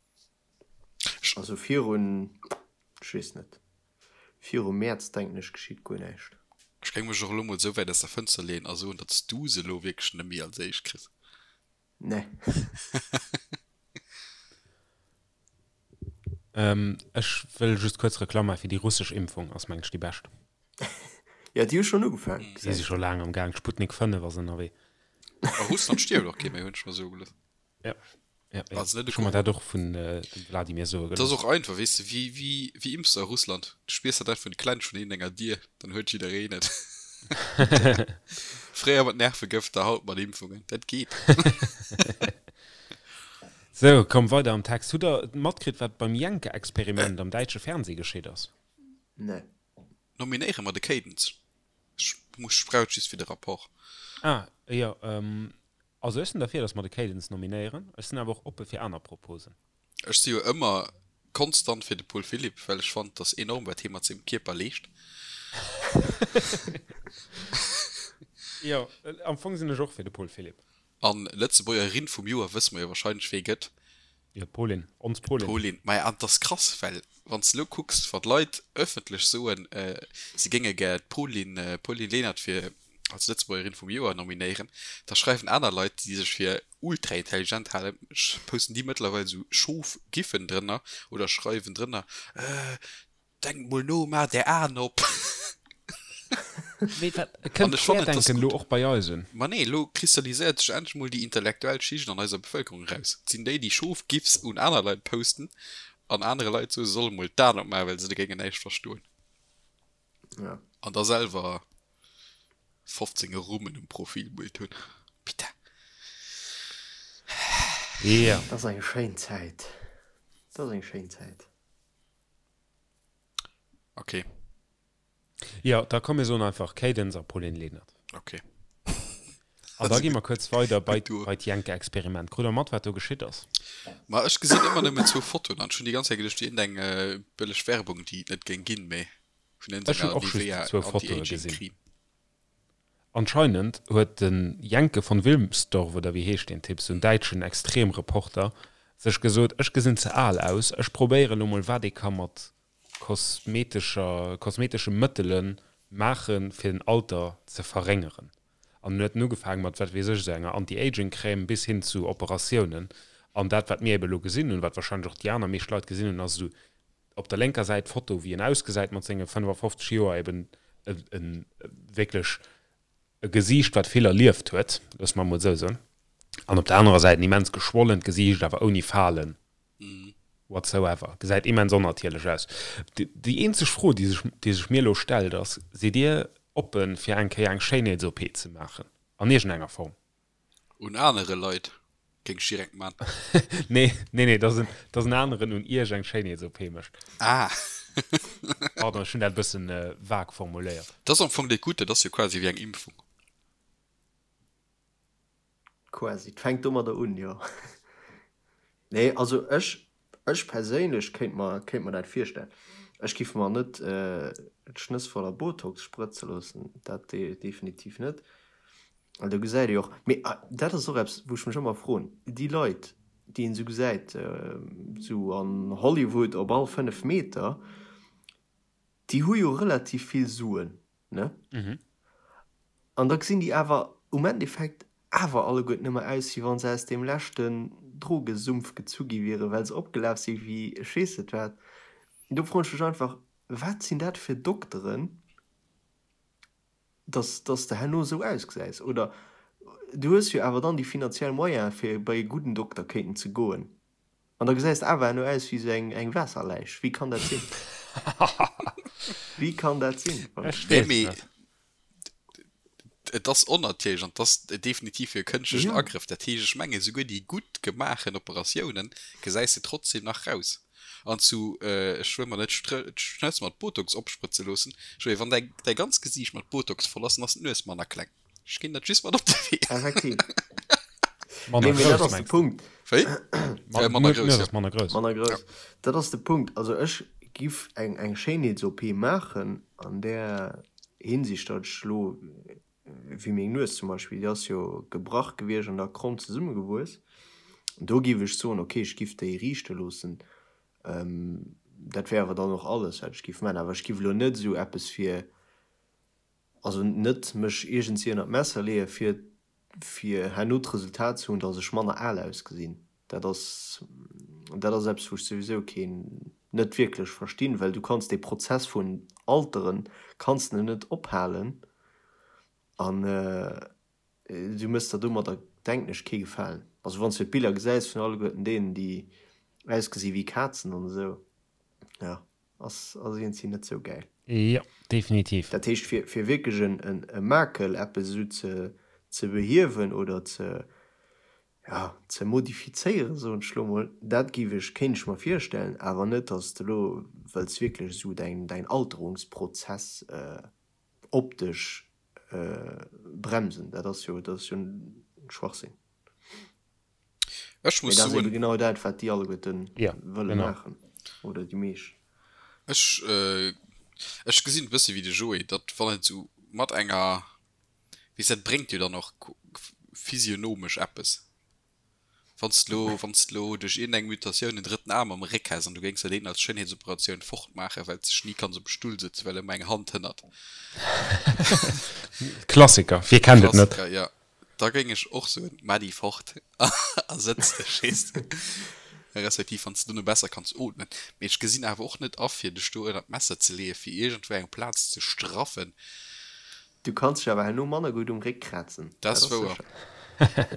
Also virun, ech weess net, virum Mäerz denken ech geschitt guer näischt. Ech géing mech och elo mol esou wäit aus der Fënster leeën a soen, datt s du se elo wierklech net méi als éischt kriss. Nee. Ech wëll just kuerz Reklamm maachen fir déi russesch Impfung, ass mengen ech déi bescht. Jo, déi hu schonn ugefaangen, Déi si scho laang am Gaang, d'Sputnik 5 ass ënnerwee. A Russland stierft och kee méi, hunn ech mer soe gelooss. Jo. Ja, ja. Also net Ech hu mer dat och vun dem Vladimir soe Dat ass gelooss. och einfach, weess de, wéi, wéi, wéi impfs de a Russland? Du spiers dat einfach un de Klensch vun enger Dier, dann huet jiddereen et. Fréier mat Nervegëfter, haut mat Impfungen. Dat geet. Sou, komm, weider am Text. Hutt der matkritt, wat beim Jenke-Experiment am däitsche Fernseh geschitt ass? Nee. Nominéiere mer de Cadence. Ech muss, ech brauch et just fir de Rapport. Ah, jo, also ech sinn derfir, dass mer de Cadence nominéieren. Ech sinn awer och oppe fir aner Proposen. Ech si jo ëmmer konstant fir de Paul Philipp, well ech fannen, dass enorm, wat hie mat sengem Kierper leescht. Jo, am Fong sinn ech och fir de Paul Philipp. An Lëtzebuergerin vum Joer wësse mer jo wahrscheinlech wee gëtt. Jo, d'Paulin, ons Paulin. D'Paulin, maja an 't ass krass, well wann s de elo kucks, wa Leit ëffentlech soen, se géinge gär d'Paulin, Pauline Lenert fir als Lëtzebuergerin vum Joer nominéieren, da schreiwen aner Leit, déi sech fir ultra intelligent halen, posten déi mëttlerweil esou Schof-Giffen drënner oder schreiwen drënner, Denkt mol no, maacht är Aen op! Mee wat, kënnt d'Querdenken elo och bei eis un? Ma nee, elo kristalliséiert sech endlech mol déi intellektuell Schicht an eiser Bevëlkerung eraus. Et sinn déi, déi Schof-Gifs un aner Leit posten an anere Leit soen, se solle mol d'Aen opmaachen, well se da géingen näischt verstoen. An da selwer 15 Rummen um Profilbild hunn. Bitte. Jo. Dat ass eng schéin Zäit. Dat ass eng schéin Zäit. Okay. Jo, da komm mir soen einfach Cadence a Pauline Lenert. Okay. An da gi mer kuerz weider bei, bei d'Jenke-Experiment. Krut der mat, wat do geschitt ass? Ma ech gesinn ëmmer nëmmen zwou Fotoen an ech hunn déi ganz Zäit geduecht, wier iergendeng bëlleg Werbung, déi et net géing ginn, mee vun Ech hunn iergendenger och just Nivea zwou Fotoe gesinn. Anti-Aging-Creme. Anscheinend huet de Jenke von Wilmsdorff, oder wéi heescht deen Typ, sou en däitschen Extremreporter, sech gesot, ech gesinn ze al aus, ech probéiere lo mol wat ee ka mat kosmetescher, kosmetesche Mëttele maachen, fir den Alter ze verréngeren. An en huet en ugefaange mat, wat weess ech, esou enger Anti-Aging-Crème bis hin zu Operatiounen. An dat, wat mir ebe lo gesinn hunn, wat wahrscheinlech och déi aner meescht Leit gesinn hunn, ass esou op der lénker Säit d'Foto wéi en ausgesäit mat senge 55 Joer, eben e wierklech e Gesiicht wat vill erlieft huet, loosse mer emol esou soen, an op der anerer Säit en immens geschwollent Gesiicht, awer ouni Falen whatsoever, gesäit immens onnatierlech aus. Déi eenzeg Fro déi sech déi sech mir elo stellt ass, sidd Dir oppe fir eng Kéier eng Schéinheets-OP ze maachen an iergendenger Form? Un anere Leit géing ech direkt man. Nee, nee, nee, dass en, dass en aneren un iech eng Schéinheets-OP mécht. Ah. Pardon, ech hunn dat e bëssen vag formuléiert. Dat ass am Fong déi gutt, dat ass jo quasi wéi eng Impfung. Quasi, et fänkt domadder un, jo. Nee, also ech, ech perséinlech kéint mer, kéint mer dat virstellen. Ech giff mer net d'Schnëss voller Botox sprëtze loossen, dat definitiv net. Well do gesäit ee jo och, mee dat ass och eppes, wou ech mech ëmmer froen, déi Leit, déi een esou gesäit, esou an Hollywood op all 5 Meter, déi hu jo relativ vill Suen, ne? An da gesinn déi awer um Endeffekt awer alleguerten ëmmer aus, wéi wa se aus deem leschten Drogesumpf gezu gi wieren, well se opgelaf si wéi ech weess net wat. Do froen ech mech einfach, wat sinn dat fir Dokteren, dass dass de herno esou ausgesäis oder du hues jo awer dann déi finanziell Moyene fir bei e gudden Dokter kéinten ze goen an da gesäis de awer herno aus wéi esou eng eng Waasserläich. Wéi kann dat sinn? Wéi kann dat sinn? Ech weess mee net. Et ass onnatierlech an et ass definitiv e kënschtlechen Agrëff. Dat heescht, ech mengen, esouguer déi gutt gemaachen Operatiounen gesäis de trotzdem nach raus. An zu, ech wëll mer net d'Schnëss mat Botox opsprëtze loossen, ech wéi wann däi däi ganzt Gesiicht mat Botox voll ass, dann ass d'Nues manner kleng. Ech ginn dat just mat op de Wee. Effektiv. Manner Nee, mee dat grouss, ass de mengs de? Punkt. Wéi? Ma, Äh, manner d'Nues grouss, jo. ass manner grouss. Manner grouss. Dat ass de Punkt. Also ech giff eng eng Schéinheets-OP maachen an där Hinsicht, datt ech elo, wéi meng Nues zum Beispill, déi ass jo gebrach gewiescht an da kromm zesummegewuess. Do giff ech soen, ok, ech giff déi riichte loossen. Dat wär awer dann och alles, wat ech giff maachen. Awer ech giff elo net esou eppes fir, also net mech iergendwéi ënner d'Messer leeë fir, fir herno d'Resultat ze hunn, datt ech manner al ausgesinn. Dat ass, dat ass eppes, wou ech souwisou keen, net wierklech verstinn, well du kanns dee Prozess vun Alteren kanns de net ophalen an du méchs der domadder, denken ech, kee Gefalen. Also wann s du d'Biller gesäis vun alleguerten deenen, déi ausgesi wéi Kazen an esou, jo, ass ass iergendwéi net sou gäil. Jo, definitiv. Dat heescht, fir fir wierklech en en e Makel, eppes esou ze ze behiewen oder ze, ja, ze modifizéieren, soen ech elo mol, dat géif ech, kéint ech mer virstellen, awer net, datt s de elo wëlls wierklech esou däin däin Alterungsprozess optesch bremsen, dat ass jo, dat ass jo Schwachsinn. Ech muss Mee dat ass soen, ebe genau dat, wat déi alleguerten Ja, wëlle genau. maachen, oder déi meescht. Ech, ech gesinn et e bësse wéi de Joé, datt wann et esou mat enger, weess, dat bréngt jo dann och physionomesch eppes. Wann s de lo, wann s de lo duerch iergendeng Mutatioun en drëtten Aarm am Réck häss an du géings der deen als Schéinheetsoperatioun fortmaachen, well s dech ni kanns op e Stull sëtzen, well ëmmer eng Hand hënnert. Klassiker, wie kennt et net? Klassiker, ja. Da géing ech och soen, Maach déi fort a sëtz dech, weess de. Respektiv wann s de dono besser kanns ootmen. Mee ech gesinn awer och net a fir dech do ënnert d'Messer ze leeën, fir iergendwou eng Plaz ze straffen. Du kanns dech awer herno manner gutt um Réck krazen, Dat ass wouer. sécher.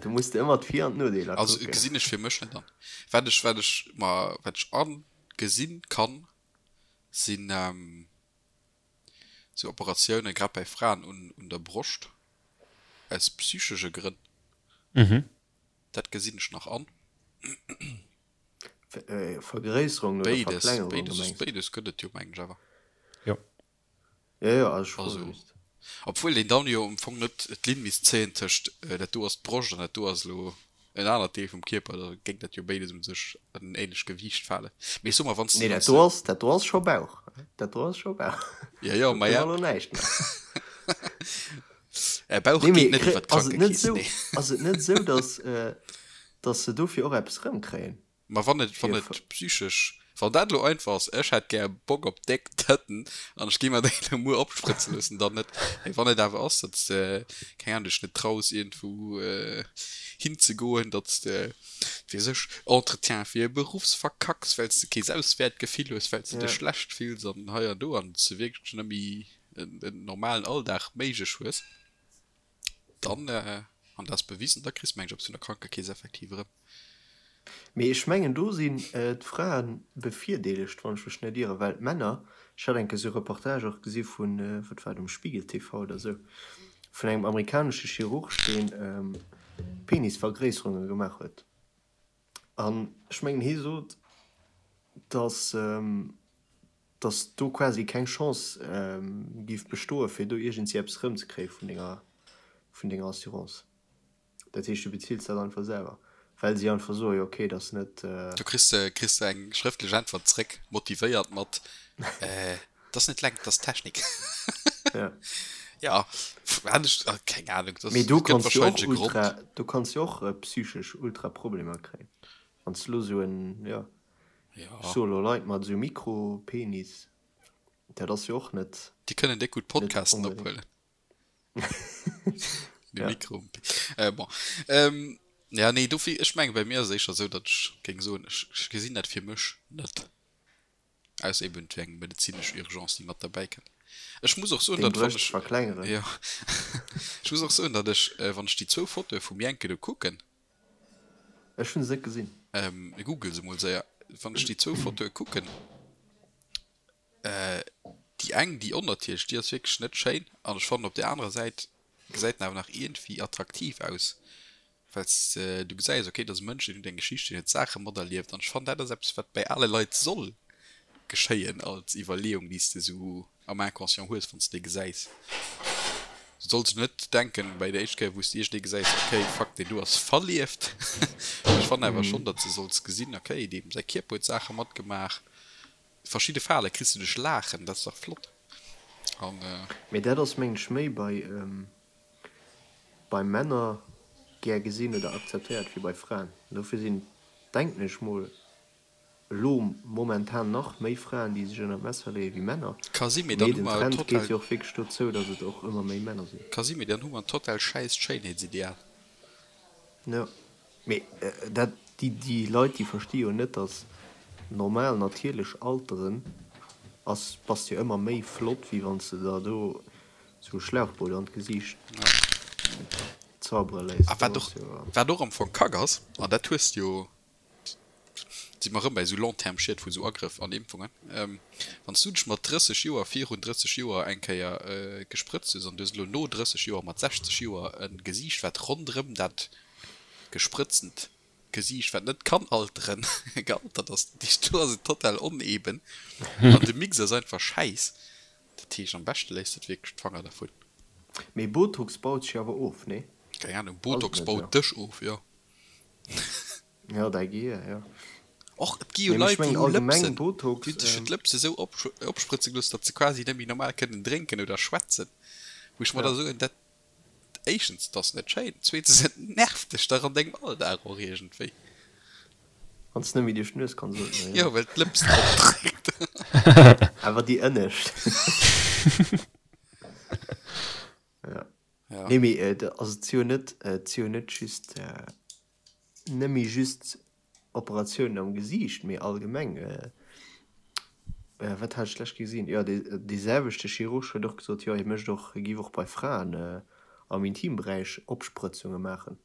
Do muss de ëmmer d'Vir an d'Nodeeler Also kucken. gesinn ech fir mech net an. Wat ech, wat ech mer, wat ech agesinn kann, sinn sou Operatiounen, grad bäi Fraen un, un der Broscht, aus psychesche Grënn. Dat gesinn ech nach an. Vergréisserung oder Béides, Verklengerung, béides, mengs de? béides gëtt et jo, mengen ech awer. Jo. Jo, jo, also ech froe Also, just. obwuel een dann jo am Fong net d'Linn misst zéien tëscht dat do ass d'Broscht an dat do ass elo en anert Deel vum Kierper, da géing dat jo béides un sech an en ähnlecht Gewiicht falen. Mee ech soe mer, wann s Nee, de, dat do ass, dat do ass scho Bauch. Dat do ass scho Bauch. Jo, jo, Do ma kënne ja. mer elo näischt maachen. Äh, Bauch Nee, geet mee net kri, iwwer ass et net d'Krankekeess, esou, nee. ass et net esou, dass, dass se dofir och eppes erëmkréien? Ma wann et, wann et psychesch, wann dat elo einfach ass, ech hätt gär Bock op déck Tëtten an ech gi mer déi elo muer opsprëtze loossen, dann net. Mee wann et awer ass, datt s de, keng Ahnung, dech net traus iergendwou hinzegoen, datt s de, weess ech, Entretien fir e Beruffs verkacks, well s de kee Selbstwäertgefill hues, well s de dech schlecht fills an hei an do an s de wierklech net méi en normalen Alldag méiglech hues. Dann, an dat ass bewisen, da kriss de meng ech eppes vun der Krankekeess effektiv erëm. Mee ech mengen do sinn d'Frae bevirdeelegt, wann ech mech net ieren, well d'Männer, ech hat eng Kéier esou e Reportage och gesi vun, wat war et, um Spiegel TV oder esou, vun engem amerikanesche Chirurg, deen Penisvergréisserunge gemaach huet. An ech mengen hie sot, datt dass do quasi keng Chance géif bestoen, fir do iergendwéi eppes erëmzekréie vun denger, vun denger Assurance. Dat heescht, du bezills dat einfach selwer, well si einfach soen, jo okay, dat ass net. Do kriss de, kriss de eng schrëftlech Äntwert zréck, motivéiert mat, Dat ass net Längt, dat ass Technik. Ja. Ja, hat ech, keng Ahnung, dat Mee do gëtt kanns du och wahrscheinlech e Grond. ultra, do kanns du och psychesch ultra Problemer kréien, wann s du elo esou en, jo. Ja. Ech soe lo Leit mat esou Mikropenis, dat ass jo och net. Déi kënnen déck gutt Net Podcasten onbedéngt. ophuelen. De Ja. Mikro. Äh, bon. Ähm, ja, nee, dofir, ech menge bei mir ass et éischter esou, datt ech géing soen, ech, ech gesinn dat fir mech net. Ausser eben et wier eng medezinesch Urgence, déi mat derbäi kënnt. Ech muss och soen, Deng datt wann Brëscht ech, verklengeren. jo, ech muss och soen, datt ech, wann ech déi zwou Fotoe vum Jenke do kucken, Ech hunn se net gesinn. Ähm, google se mol séier. Wann ech déi zwou Fotoe kucken, äh, déi eng, déi onnatierlech, déi ass wierklech net schéin. An ech fannen op där anerer Säit gesäit en awer nach iergendwéi attraktiv aus, well s du gesäis, okay, dat ass e Mënsch, deen huet eng Geschicht, deen huet Saache materlieft. An ech fannen, dat ass eppes, wat bäi ale Leit soll geschéien als Iwwerleeung, déi s de esou am Inconscient hues, wann s de dee gesäis. Du solls net denken, bäi der éischt Kéier, wou s de iergendee gesäis, okay, fuck, deen do ass verlieft. Mee ech fannen awer schonn, datt s de solls gesinn, okay, deem säi Kierper huet Saache matgemaach. Verschidde Fale kriss du duerch Laachen, dat ass dach flott. An. Mee dat ass, mengen ech, méi bei, bei Männer gär gesinn oder akzeptéiert wéi bei Fraen. Dofir sinn, denken ech mol, elo momentan nach méi Fraen, déi sech ënner d'Messer leeë wéi Männer. Ka si, mee Mee dann hu den mer Trend total. geet jo och wierklech dozou, datt et och ëmmer méi Männer sinn. Ka si, mee dann hu mer en total schäisst Schéinheetsideal. Jo, mee dat, déi, déi Leit, déi versti jo net, datt normal, natierlech Alteren ass, bass jo ëmmer méi flott, wéi wann s de der do esou e Schlauchboot an d'Gesiicht. zaubere léisst. A wat och, wat och am Fong Kack ass, an dat hues de jo, si mer erëm bäi esou Long-terme-Schied vu sou Agrëff an Impfungen, wann s du dech mat 30 Joer, virun 30 Joer eng Kéier gesprëtzt hues an du hues elo no 30 Joer mat 60 Joer e Gesiicht, wat ronderëm dat gesprëtztent Gesiicht, wat net kann alteren, gealtert ass, dat heescht, do ass et total oneben an de Mix ass einfach schäiss. Dat heescht, am beschte léisst de wierklech d'Fanger dervun. Mee Botox baut sech awer of, nee? Keng Ahnung, Botox baut dech of, jo. Jo, däi Gehier, jo. Och et gi jo Leit, déi hu Lëpsen, déi hunn sech jo d'Lëpse sou opsprëtze gelooss, datt se quasi net méi normal kënnen drénken oder schwätzen. Wou ech mer da soen, dat, éischtens, et ass net schéin, zweetens, et nervt dech dach an dengem Alldag och iergendwéi. Wann s net méi duerch d'Nues kanns ootmen, jo. Jo, well d'Lëps drop dréckt. Awer déi ënnescht. Ja. Nee, mee also et si jo net, et si jo net just, net méi just Operatiounen am Gesiicht, mee allgemeng. Wat hat ech d'lescht gesinn? Jo, dee selwechte Chirurg huet och gesot, jo, hie mécht och, hie géif och bei Fraen am Intimberäich Opsprëtzunge maachen.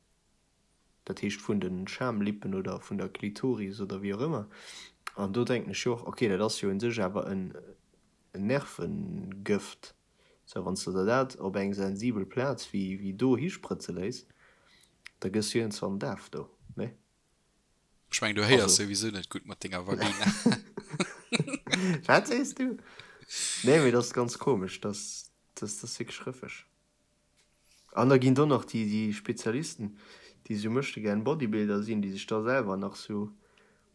Dat heescht vun de Schamlippen oder vun der Klitoris oder wéi och ëmmer. An do denken ech jo och, okay, dat ass jo un sech awer en Nervengëft. Sou, wann s de der dat op eng sensibel Plaz wéi do hisprëtze léiss, da gëss du iergendwann daf do, nee? Ech mengen, du héiers souwisou net gutt mat denger Vagina. Wat sees du? Nee, mee dat ass ganz komesch, dat ass wierklech rëffeg. An da ginn do nach déi déi Spezialisten, déi sou möchtegern Bodybuilder sinn, déi sech da selwer nach sou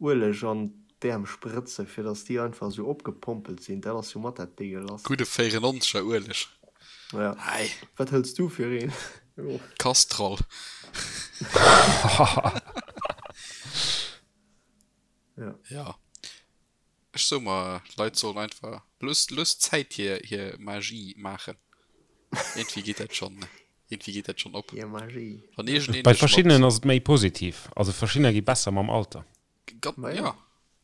Ueleg an d'Äerm sprëtzen, fir dass déi einfach sou opgepompelt sinn. Dat ass jo mat dat Degelasst. Gudde 94er Ueleg. Ja. Hei. Wat hëls du fir een? Castrol. Ja. Ja. Ech soe mer, d'Leit sollen einfach, looss, looss d'Zäit hir, hir Magie maachen. Iergendwéi geet dat schonn, iergendwéi geet dat schonn op. Hir Magie. Wann iergendeen Bei dech mat. verschiddenen ass et méi positiv. Also verschiddener gi besser mam Alter. Ga, Ma jo. ja,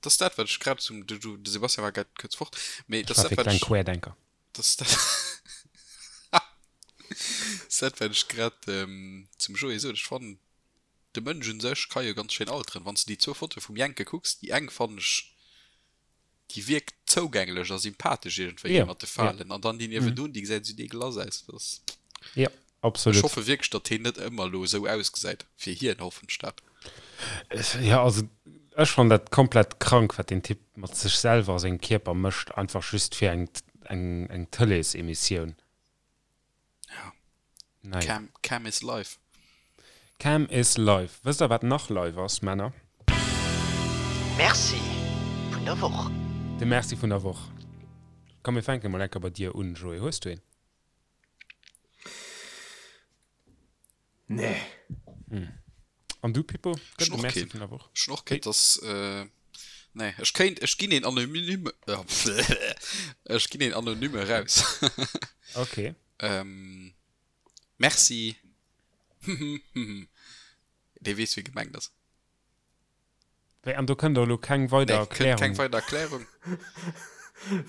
dat ass dat, wat ech grad zum, de, de Sebastian war grad kuerz fort, mee Ech dat war ass dat, fir wat kleng ech, Querdenker. dat ass dat, ass dat, wat ech grad zum Joé sot. Ech fannen, de Mënsch un sech ka jo ganz schéin alteren. Wann s de déi zwou Fotoe vum Jenke kucks, déi eng fannen ech, déi wierkt zougänglech a sympathesch iergendwéi, déi mat de Falen, an dann déi niewendun, déi gesäit esou deegelass aus. Dat ass, Jo, absolut. Ech hoffe wierklech, datt heen net ëmmer elo esou ausgesäit. Fir hien hoffen ech dat. Jo, also ech fannen dat komplett krank, wat deen Typ mat sech selwer a sengem Kierper mécht, einfach just fir eng, eng, eng Tëleesemissioun. Ja. Naja. Cam, Cam is life. Cam is life. Wësst der wat nach live ass, Männer? Merci vun der Woch. De Merci vun der Woch. Komm mir fänke mol enker bei dir un, Joé. Hues du een? Nee. An du, Pippo? Gëtt et e Merci vun der Woch? Ech hunn och keen. Dass, nee, ech kéint, ech ginn een anonyme, ech ginn een anonyme eraus. Ok. Merci. Dee weess, wie gemengt ass. Wéi, an do kënnt och elo keng weider Nee, kënnt Erklärung? keng weider Erklärung.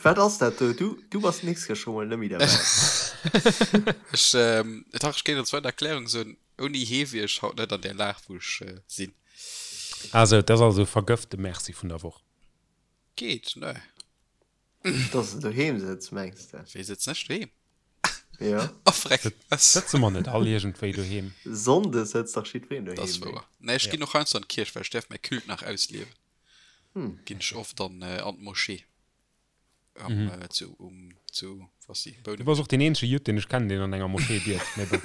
Wat ass dat do? Du, du bass d'nächst Kéier scho mol net méi derbäi. Ech, dach, ech kéint als weider Erklärung soen, ouni hee wier ech haut net an där Lag, wou ech sinn. Ah sou, dat ass also e vergëfte Merci vun der Woch. Geet, ne? Dass de doheem sëtz, mengs de? Wéi sëtzen ech doheem? Ja. Oh freck, was? Sëtze mer net all iergendwéi doheem? Sonndes sëtzt dach jiddwereen Dat ass doheem, nee? wouer. Nee, ech ginn och heiansdo an d'Kierch, well ech däerf mäi Culte nach ausliewen. Ginn ech oft an an d'Moschee am zu um zu was si Du Bouneweg. bass och deen eenzege Judd, deen ech kennen, deen an enger Moschee biet, mee bon.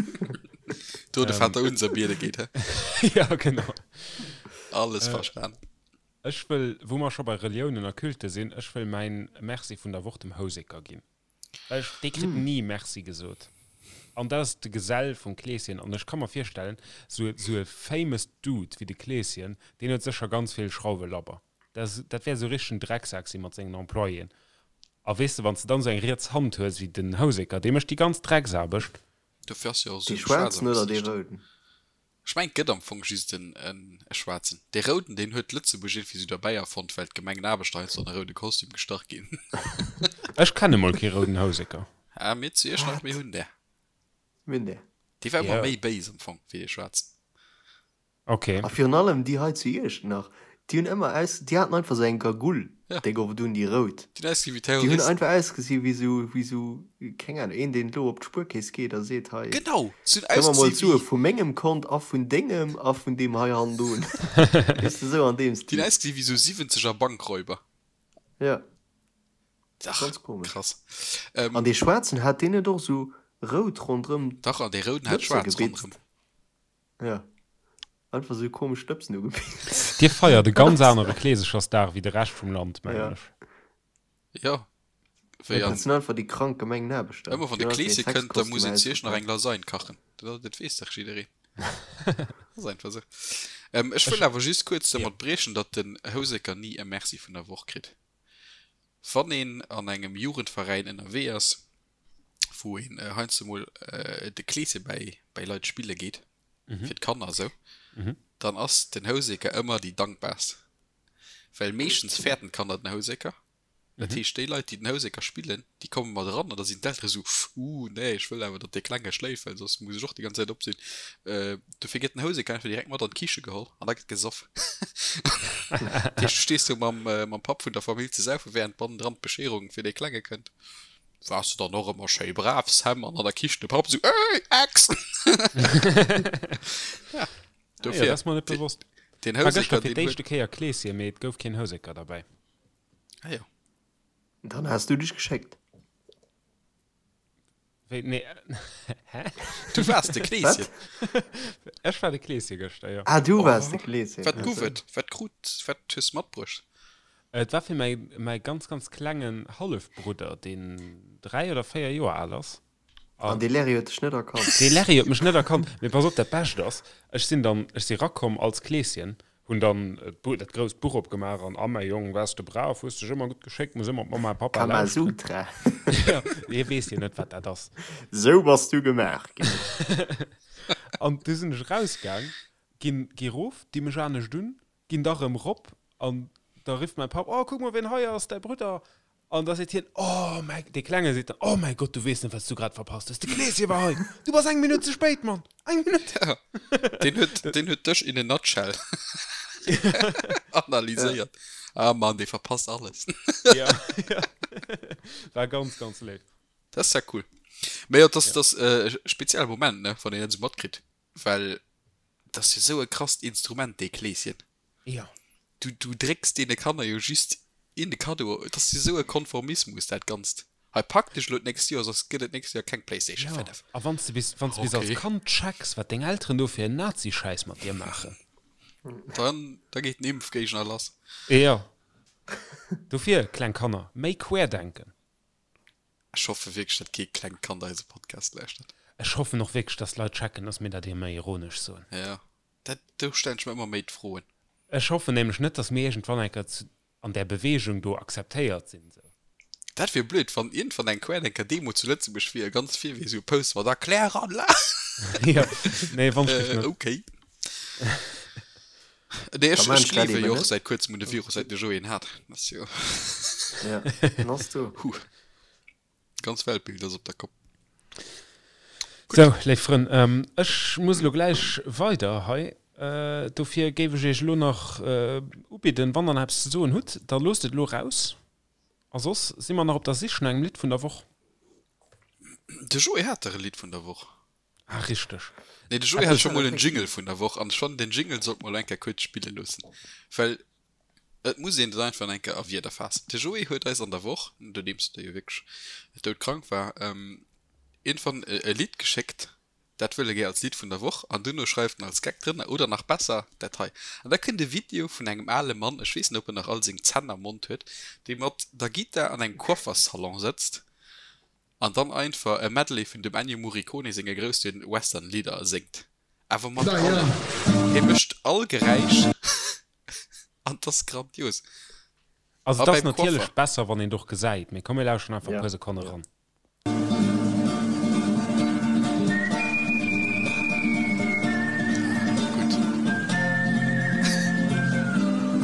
Do de Vater unser biede geet, hä? Ja, genau. Alles verstan. Ech wëll, wou mer scho bei Reliounen a Culte sinn, ech wëll mäin Merci vun der Woch dem Houseker ginn. Well ech, dee kritt ni Merci gesot. An dat ass de Gesell vum Kleeschen. An ech ka mer virstellen, sou, sou e famous Dude wéi de Kleeschen, deen huet sécher ganz vill Schrauwe labber. Dat ass, dat wäert esou richtegen Drecksak si mat sengen Employéen. A weess de, wann s de dann esou eng riets Hand hues wéi den Houseker, dee mécht déi ganz Drecksaarbecht. Dofir ass jo och esou Dee schwaarz am schwaarzen oder dee Gesiicht. rouden? Ech mengen et gëtt am Fong just en e schwaarzen. Dee rouden deen huet Lëtzebuerg iergendwéi sou derbäi erfonnt well d'Gemengenaarbechter heiansdo an e roude Kostüm gestach ginn. Ech kenne mol kee rouden Houseker. Ah mir zu Iechternach mir hunn där. Mir hunn där. Dee war ëmmer méi béis am Fong wéi dee schwaarzen. Ok. A virun allem déi hei zu Iechternach, déi hunn ëmmer aus, déi haten einfach sou eng Gagull, Ja. déi gouf et un, déi rout. Déi hunn ausgesi wéi Déi hunn Terroristen. einfach ausgesi wéi sou, wéi sou, keng Ahnung, een deen elo op d'Spuerkeess geet a seet, hei, Genau, se hunn gëmm mer mol ausgesi d'Sue wéi, vu mengem Kont a vun dengem a vun deem hei hannendrun. Weess de, sou an deem déi hunn Stil. ausgesi wéi sou siwwenzeger Bankräuber. Ja, Dach, ganz komesch. krass. An Ähm, dee schwaarzen, hat deen net och sou rout ronderëm dach, an dee rouden hat d'Lëpse schwaarz ronderëm. gebitzt? Ja. Einfach sou komesch Stëbsen ugebitt. Dir feiert e ganz anere Kleesechersdag wéi de Rescht vum Land, mengen Ja. ech. Jo, wéi Dat an sinn einfach déi krank Gemengenaarbechter. ëmmer wann Déi de hunn einfach Kleeschen hir kënnt, da muss Sexkostümer een zu Iech nach eng ausgepackt. Lasagne kachen. Dat, dat weess dach jiddereen. Ass einfach sou. Ähm, ech wëll awer just kuerz Ja. domat briechen, datt den Houseker ni e Merci vun der Woch kritt. Wann een an engem Jugendveräin ënnerwee ass, wou een heiansdo mol de Kleeschen bäi, bäi Leit spille geet, fir d'Kanner esou, dann ass den Houseker ëmmer déi dankbarst. Well meeschtens fäerten d'Kanner den Houseker. Dat heescht, déi Leit, déi den Houseker spillen, déi komme mat eran an da sinn d'Eltere sou, Uh, nee, ech wëll awer, datt dee Klenge schléift, well soss muss ech och déi ganz Zäit op sinn. Dofir gëtt den Houseker einfach direkt mat an d'Kiche geholl an da gëtt gesoff. Dat heescht, du stees do mam, mam Papp vun der Famill ze saufen, wärend bannendran d'Bescheerung fir dee Klenge kënnt. Wars du dann och ëmmer schéi brav, Sam? An an der Kichen de Papp esou, Ey, Ex! Ja, Ah jo, dofir, dat ass mer net bewosst. den War gëschter Houseker, fir deen huet. d'éischte Kéier Kleeschen, mee et gouf keen Houseker derbäi. Ah jo. Dann has du dech geschéckt. Wéi, nee, hä? Du waars de Kleeschen. Wat? Ech war de Kleeschen gëschter, jo. Ah, du waars de Oh, Kleeschen. wat gouf Also. et? Wat krut, wat hues matbruecht? Et war fir mäi, mäi ganz, ganz klengen Hallefbrudder, deen 3 oder 4 Joer al ass. An An dee Larry huet dech net erkannt. dee Larry huet mech net erkannt. Mee pass op, dat Bescht ass, ech sinn dann, ech si rakomm als Kleeschen, hunn dann d'Bu, dat grousst Buch opgemaach an, A mäi Jong, waars de brav, hues dech ëmmer gutt geschéckt, muss ëmmer op Mamma a Pappa lauschteren. Kamasutra. Jo, hie weess jo net, wat dat ass. Sou bass du gemaach ginn. An du sinn ech erausgaang, ginn, gi rof, di mech anescht un, Ginn da rëm rop an da rifft mäi Papp, Oh, kuck mol, wien hei ass, däi Brudder! An da seet hien, Oh mäi, dee Klenge seet dann, Oh mäi Gott, du weess net, wat s du grad verpasst hues, de Kleeschen war hei! Du bass eng Minutt ze spéit, Mann! Eng Minutt! Ja, deen huet, deen huet dech in a nutshell analyséiert. Ah Mann, dee verpasst alles. Ja, ja. War ganz, ganz léif. Dat ass ja cool. Mee jo, dat ass, dat ass e spezielle Moment, ne, wann een dat esou matkritt, well Dat ass jo sou e krasst Instrument, dee Kleeschen. Ja. Du, du drécks deene Kanner jo just een de Kaddo. Et ass jo sou e Konformismus, dat Ganzt. Hei, pak dech elo d'nächst Joer, soss gëtt et d'nächst Joer keng Playstation Ja, 5. a wann s de bis, wann s de bis als Okay. Kand checks, wat deng Elteren do fir en Nazi-Schäiss mat dir maachen. Dann, da geet den Impfgéigner lass. Ja. Dofir, kleng Kanner, méi querdenken. Ech hoffe wierklech, datt kee klengt Kand eise Podcast lauschtert. Ech hoffen och wierklech, dass d'Leit checken, dass mir dat ëmmer ironesch soen. Ja, dat, do stellen ech mer ëmmer méi d'Froen. Ech hoffen nämlech net, dass mir iergendwann eng Kéier zu, an där Beweegung do akzeptéiert sinn. Sou. Dat wier blöd, wann iergendwann eng Querdenker-Demo zu Lëtzebuerg wier, ganz vir wier esou e Poster mat Erkläranlag. Jo, nee, wann ech net. Okay. Nee, ech, ech gleewe jo och säit kuerzem un de Virus, säit de Joé en hat. Dat ass jo. Ja, en ass do. Huh. Ganz Weltbild ass op der Kopp. Sou, léif Frënn, ech muss elo gläich weider hei. Dofir géif ech iech elo nach ubidden, wann der nach eppes ze soen hutt, da loosst et elo raus. A soss si mer nach op der Sich no engem Lidd vun der Woch. De Joé hat dach e Lidd vun der Woch. Ah, richteg. Nee, de Joé hat scho mol en Jingle vun der Woch an ech fannen, den Jingle sollt mer elo eng Kéier kuerz spille loossen, well et muss een et einfach eng Kéier a Wierder faassen. De Joé huet eis an der Woch, nodeems e jo wierklech doudkrank war, iergendwann e Lidd geschéckt, dat wëll e gär als Lidd vun der Woch an duerno schreift en als Gag drënner, oder nach besser, dat hei. An da kënnt e Video vun engem ale Mann, ech weess net, ob en nach all seng Zänn am Mond huet, dee mat der Gittar an engem Coifferssalon sëtzt An dann einfach e Medley vun dem Ennio Morricone senge grousse Western Lidder séngt. Awer mat allem. Hie mécht all Geräisch an 't ass grandios. Also A et ass beim natierlech Coiffer. besser wann een et och gesäit, mee komm mir lauschteren einfach e puer Sekonne ran. Gutt.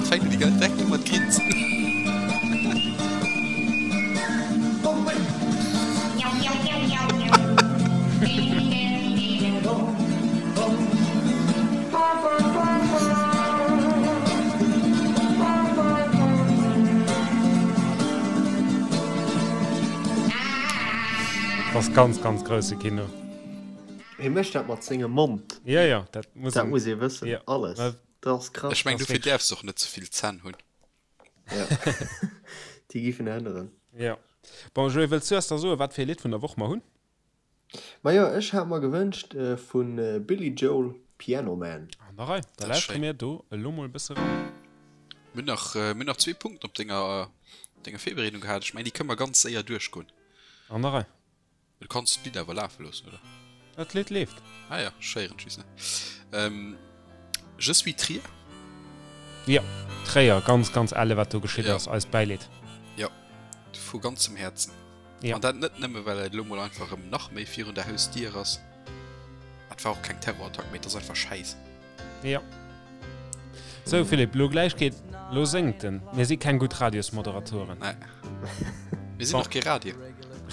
Fänkt un déi ganz direkt u mat grinsen. Dat ass ganz, ganz grousse Kino. Hie mécht dat mat sengem Mond. Ja, ja, dat muss Dat muss ee wëssen. Ja. Alles. Dat ass krass. Ech meng, dofir däerfs de och net ze vill Zänn hunn. Ja. Déi giffen änneren. Ja. Bon, Joé, wëlls du eis da soen, wat fir ee Lidd vun der Woch mer hunn? Majo, ech hat mer gewënscht vu Billy Joel, Piano Man. An der Rei, da lauschtere mir do elo mol e bësse ran. Mir hunn nach, mir hunn nach zwee Punkten op denger, denger Virbereedung gehat. Ech mengen, déi kënne mer ganz séier duerchgoen. An der Rei. Du kanns d'Lidd awer lafe loossen, oder? Dat Lidd leeft. Ah ja, ech héieren et just net. Je suis Trier. Jo, Tréier, ganz, ganz elle wat do geschitt ass. Eist Bäileed. Jo, vu ganzem Häerzen. Ja. An dat net nëmme well et elo mol einfach erëm nach méi virun der Hausdier ass. Et war och keng Terrorattack, mee et ass einfach Schäiss. Ja. Sou Philippe, lo gläich geet, lo séngt en. Mir si keng gutt Radiosmoderatoren. Nee. Mir sinn och kee Radio.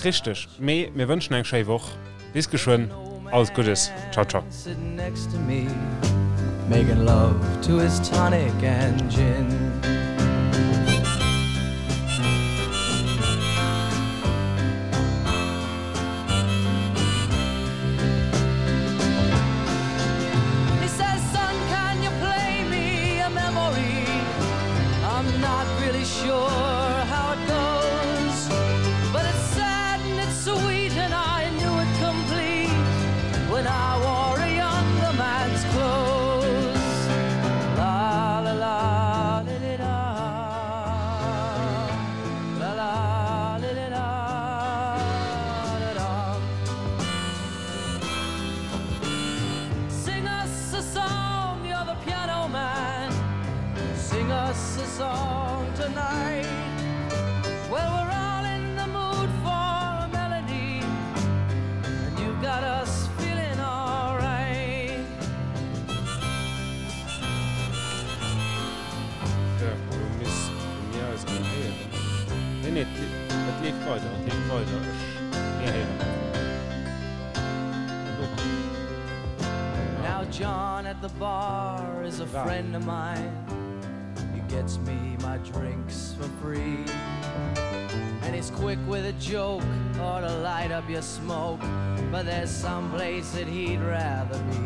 Richteg. Mee mir wënschen eng schéi Woch. Bis geschwënn. Alles Guddes. Ciao, ciao. Making love to his tonic and gin. He says, son, can you play me a memory? I'm not really sure how it goes, but it's sad and it's sweet and I knew it complete when I wore a younger man's clothes. La la la li li la la la li li la la la. Sing us a song, you're the piano man. Sing us a song tonight. Well, we're all in the mood for a melody, and you got us feeling alright. So, lo misste mir eis erëm héieren. Nee, nee, et leeft weider, et leeft weider. Ech, mir héieren eis. Now John at the bar is a friend of mine. He gets me my drinks for free. And he's quick with a joke or to light up your smoke. But there's some place that he'd rather be.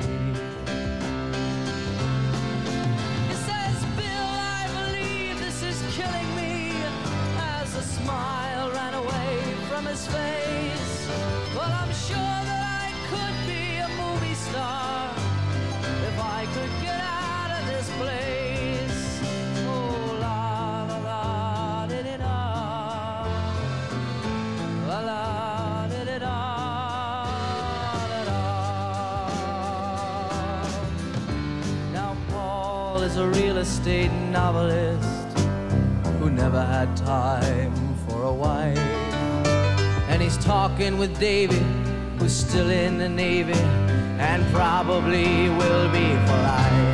He says, Bill, I believe this is killing me. As a smile ran away from his face. Well, I'm sure that I could be a movie star if I could get out of this place. Oh, la la la di di da. La la di di da. Da da. Now Paul is a real estate novelist who never had time for a wife. And he's talking with Davy, who's still in the Navy and probably will be for life.